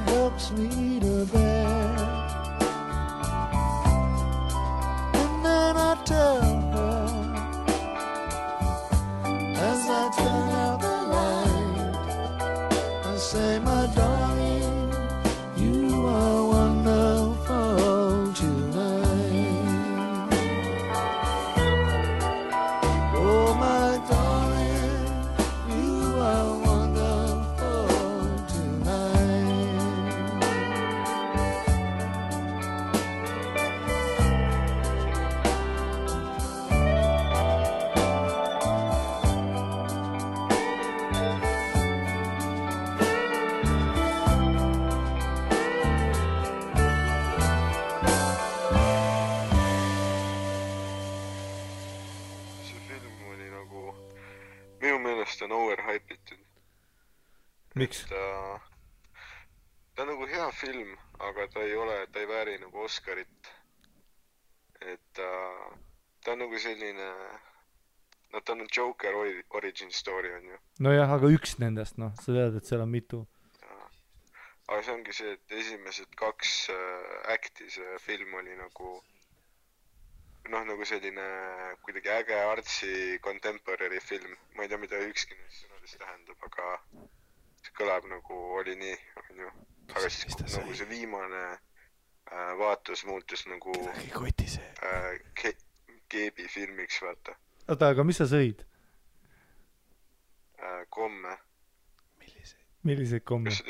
nagu minu meelest on overhypitud. Miks? Ta on nagu hea film, aga ta ei vääri nagu Oscarit. Et ta on nagu selline, no ta on Joker origin story on ju. Nojah, aga üks nendest, noh, sa tead, et seal on mitu. Aga see ongi see, et esimesed 2 acti see film oli nagu noh, nagu selline kuidagi äge artsi contemporary film. Ma ei tea, mida ükski neist sõnadest tähendab, aga see kõlab nagu oli nii, on ju. Aga siis nagu see viimane vaatus muutus nagu Keebi filmiks, vaata. Oota, aga mis sa sõid? Komme. Milliseid komme? Kas sa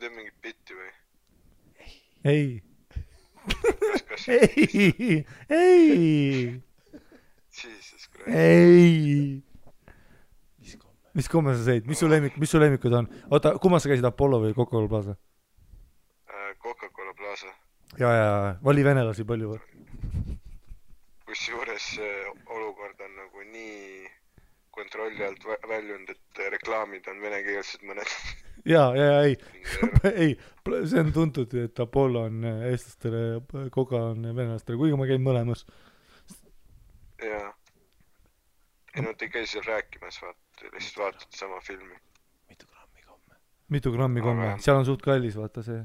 teed mingit bitti või? Ei. Kas Ei. Jesus Christ. Ei. Mis komme sa sõid? Mis su lemmikud on? Oota, kummas sa käisid, Apollo või Coca-Cola Plaza? Coca-Cola Plaza. Ja, vali venelasi palju või? Kusjuures olukord on nagu nii kontrolli alt väljund, et reklaamid on venekeelsed mõned. Ei, see on tuntud, et Apollo on eestlastele, Coca on venelastele, kuigi ma käin mõlemas. Jaa. Ei, nad ei käi seal rääkimas, lihtsalt vaatad sama filmi. Mitu grammi komme? Seal on suht kallis, vaata see.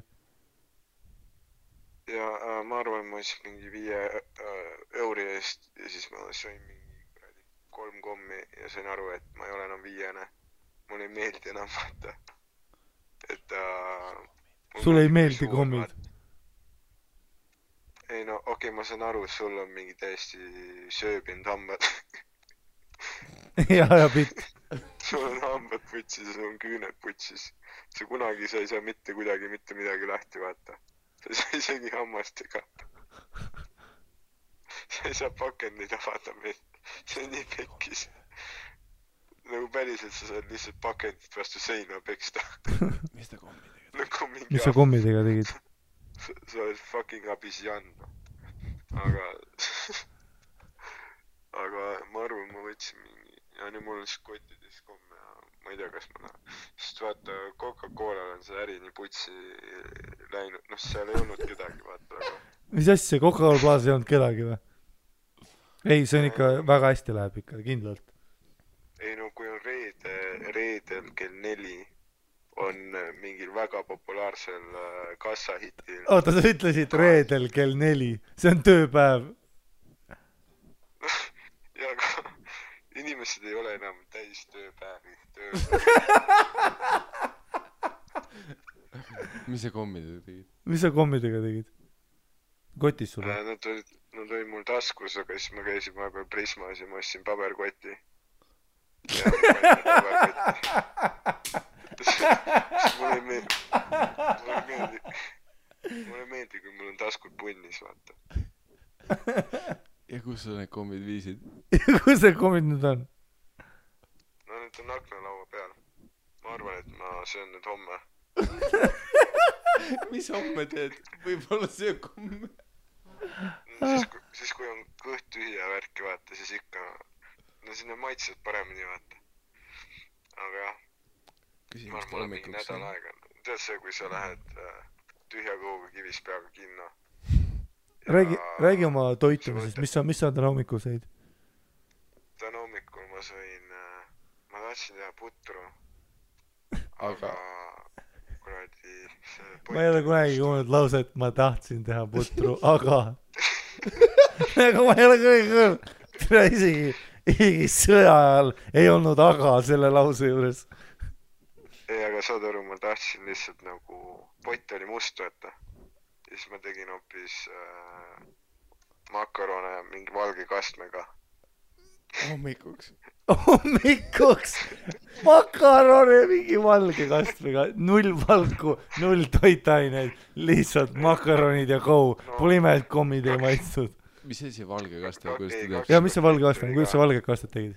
Ja ma arvan, ma siis mingi 5 euri eest ja siis ma sõin mingi 3 kommi ja sain aru, et ma ei ole enam 5. Mulle ei meeldi enam, vaata. Et sulle ei meeldi kommid? Ei no, okei, ma saan aru, sul on mingi täiesti sööbinud hambad. ja pitt. Sul on hambad putsis ja sul on küüned putsis. Sa ei saa mitte midagi lahti, vaata. Sa ei saa isegi hammastega. Sa ei saa pakendid avada meil. See on nii pekkis. Nagu päriselt sa saad lihtsalt pakendit vastu seina peksta. Mis ta kommidega tegid? Mis sa kommidega tegid? Sa oled fucking abisjan. Aga ma arvan, ma võtsin mingi... Ja nüüd mul on siis kottides komme ja ma ei tea, kas ma sest vaata, Coca-Cola on see äri nii putsi läinud. Noh, seal ei olnud kedagi, vaata. Aga... Mis asja, Coca-Cola Plaza ei olnud kedagi või? Ei, see on ikka väga hästi läheb ikka, kindlalt. Ei no, kui on reedel kell 4 on mingil väga populaarsel kassahitil. Oota, sa ütlesid reedel kell 4. See on tööpäev. Ja aga inimesed ei ole enam täis tööpäevi. Mis sa kommidega tegid? Mis sa kommidega tegid? Kotis sulle? Nad olid mul taskus, aga siis ma käisin vahepeal Prismas ja ma ostsin paberkoti. Ja mulle meeldi, kui mul on taskud punnis, vaata. Ja kus sa need kommid viisid? Kus need kommid nüüd on? No need on aknalaua peal. Ma arvan, et ma söön need homme. Mis homme teed? Võib-olla söö komme. Siis kui on kõht tühja värki, vaata, siis ikka... No sinna maitsed paremini, vaata. Aga jah. Ma arvan, mul mingi nädal aega. Tead see, kui sa lähed tühja kõhuga kivis peaga kinno. Räägi oma toitumisest, mis sa täna hommikul sõid? Täna hommikul ma sõin, ma tahtsin teha putru, aga kuradi ma ei ole kunagi kuulnud lause, et ma tahtsin teha putru, aga aga ma ei ole kunagi kuulnud, isegi sõja ajal ei olnud aga selle lause juures. Ei, aga saad aru, ma tahtsin lihtsalt nagu, pott oli must, võtta. Ja siis ma tegin hoopis makarone mingi valge kastmega. Hommikuks? Hommikuks! Makarone mingi valge kastmega. 0 valku, 0 toitaineid. Lihtsalt makaronid ja kou. Pole ime, et kommid ei maitstud. Mis see valge kaste? Ja mis see valge kaste on? Kuidas sa valge kastet tegid?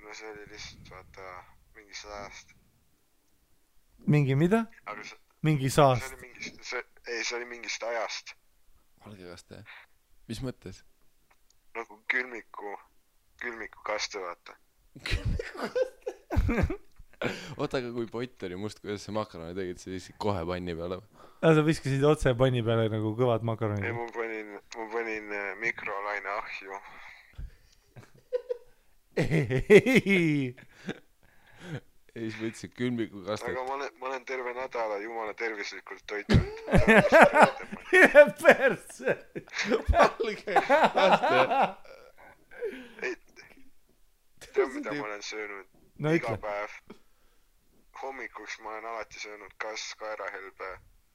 No see oli lihtsalt, vaata, mingi saast. Mingi mida? Mingi saast. See oli mingist ajast. Valge kaste? Mis mõttes? nagu külmikukaste, vaata. oota, aga kui pott oli must, kuidas see makaroni tegid, see viisid kohe panni peale? Sa viskasid otse panni peale nagu kõvad makaronid? ei, ma panin mikrolaine ahju. ei, siis võtsid külmikukastet. aga ma olen terve nädala jumala tervislikult toitunud. Perse! Valge laste. Tead, mida ma olen söönud? No iga ütle. päev. Hommikuks ma olen alati söönud kas kaerahelbe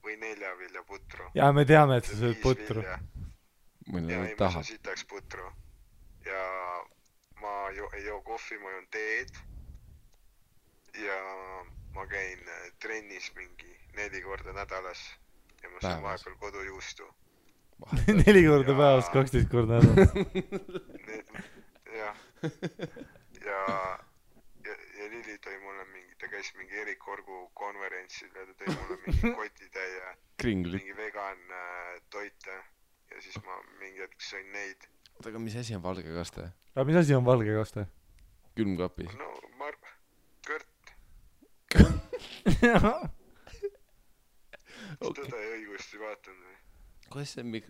või neljaviljaputru. Jaa, me teame, et sa sööd putru. ja Mõni ei, ma tahab. söön sitaks putru. Ja ma ei joo kohvi, ma joon teed. Ja ma käin trennis mingi 4 korda nädalas. Ja ma söön vahepeal kodujuustu. 4 korda päevas, 12 korda nädalas. jah. Ja Lili tõi mulle ta käis mingi Erik Orgu konverentsil ja ta tõi mulle mingi kotitäie mingi vegan toite ja siis ma mingi hetk sõin neid. oota, aga mis asi on valge kaste? Aga mis asi on valge kaste? Külmkapis? no, kõrt. Tõde ja õigust ei vaatanud või? kuidas see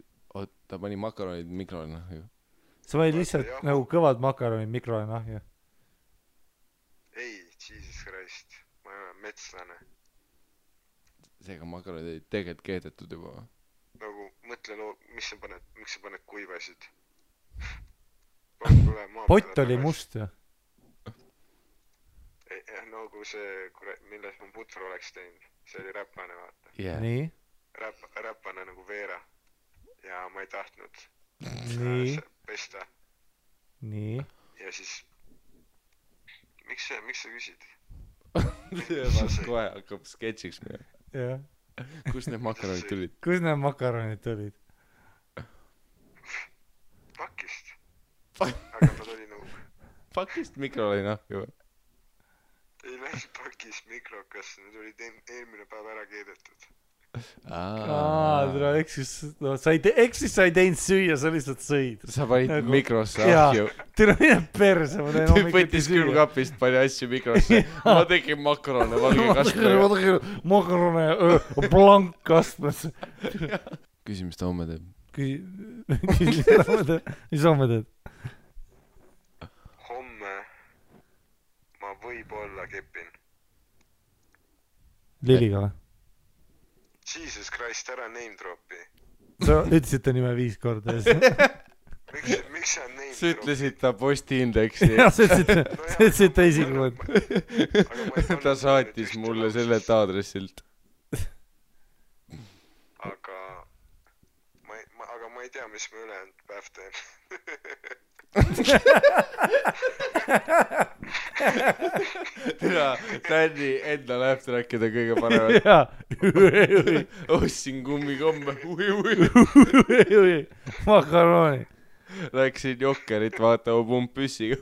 ta pani makaronid mikrolaineahju? sa panid lihtsalt nagu kõvad makaronid mikrolaineahju? ei, Jesus Christ, ma ei ole metslane. seega makaronid olid tegelikult keedetud juba. nagu mõtle, miks sa paned kuivasid? pott oli must ju. nagu see, milles ma putru oleks teinud, see oli räpane, vaata. Yeah. nii? Räpane nagu veera. ja ma ei tahtnud pesta. nii? ja siis miks sa küsid? Vast kohe hakkab sketšiks minema. jah. Kust need makaronid tulid? Kust need makaronid tulid? Pakist. aga ta tuli nagu Pakist mikrolaineahju või? ei läinud pakist mikrokasse, need olid eelmine päev ära keedetud. Tule eksis, no sa ei teinud süüa, sa lihtsalt sõid. Sa panid mikrosse ahju. Tule mine perse, ma teen hommikuti võttis külmkapist, pani asju mikrosse. ma tegin makarone valge kastmega. makarone blankkastmes. Küsi, mis ta homme teeb? Mis homme teed? homme ma võib-olla kepin. Liliga või? Jesus Christ, ära name dropi. Sa ütlesid ta nime 5 korda. miks sa name dropi? Sa ütlesid ta postiindeksi. jah, sa ütlesid ta isiklikult. ta saatis mulle sellelt aadressilt. aga ma ei tea, mis ma ülejäänud päev teen. Tänni enda lähtrackid on kõige paremad. ostsin kummikomme. makaroni. Läksin Jokkerit vaatama pumppüssiga.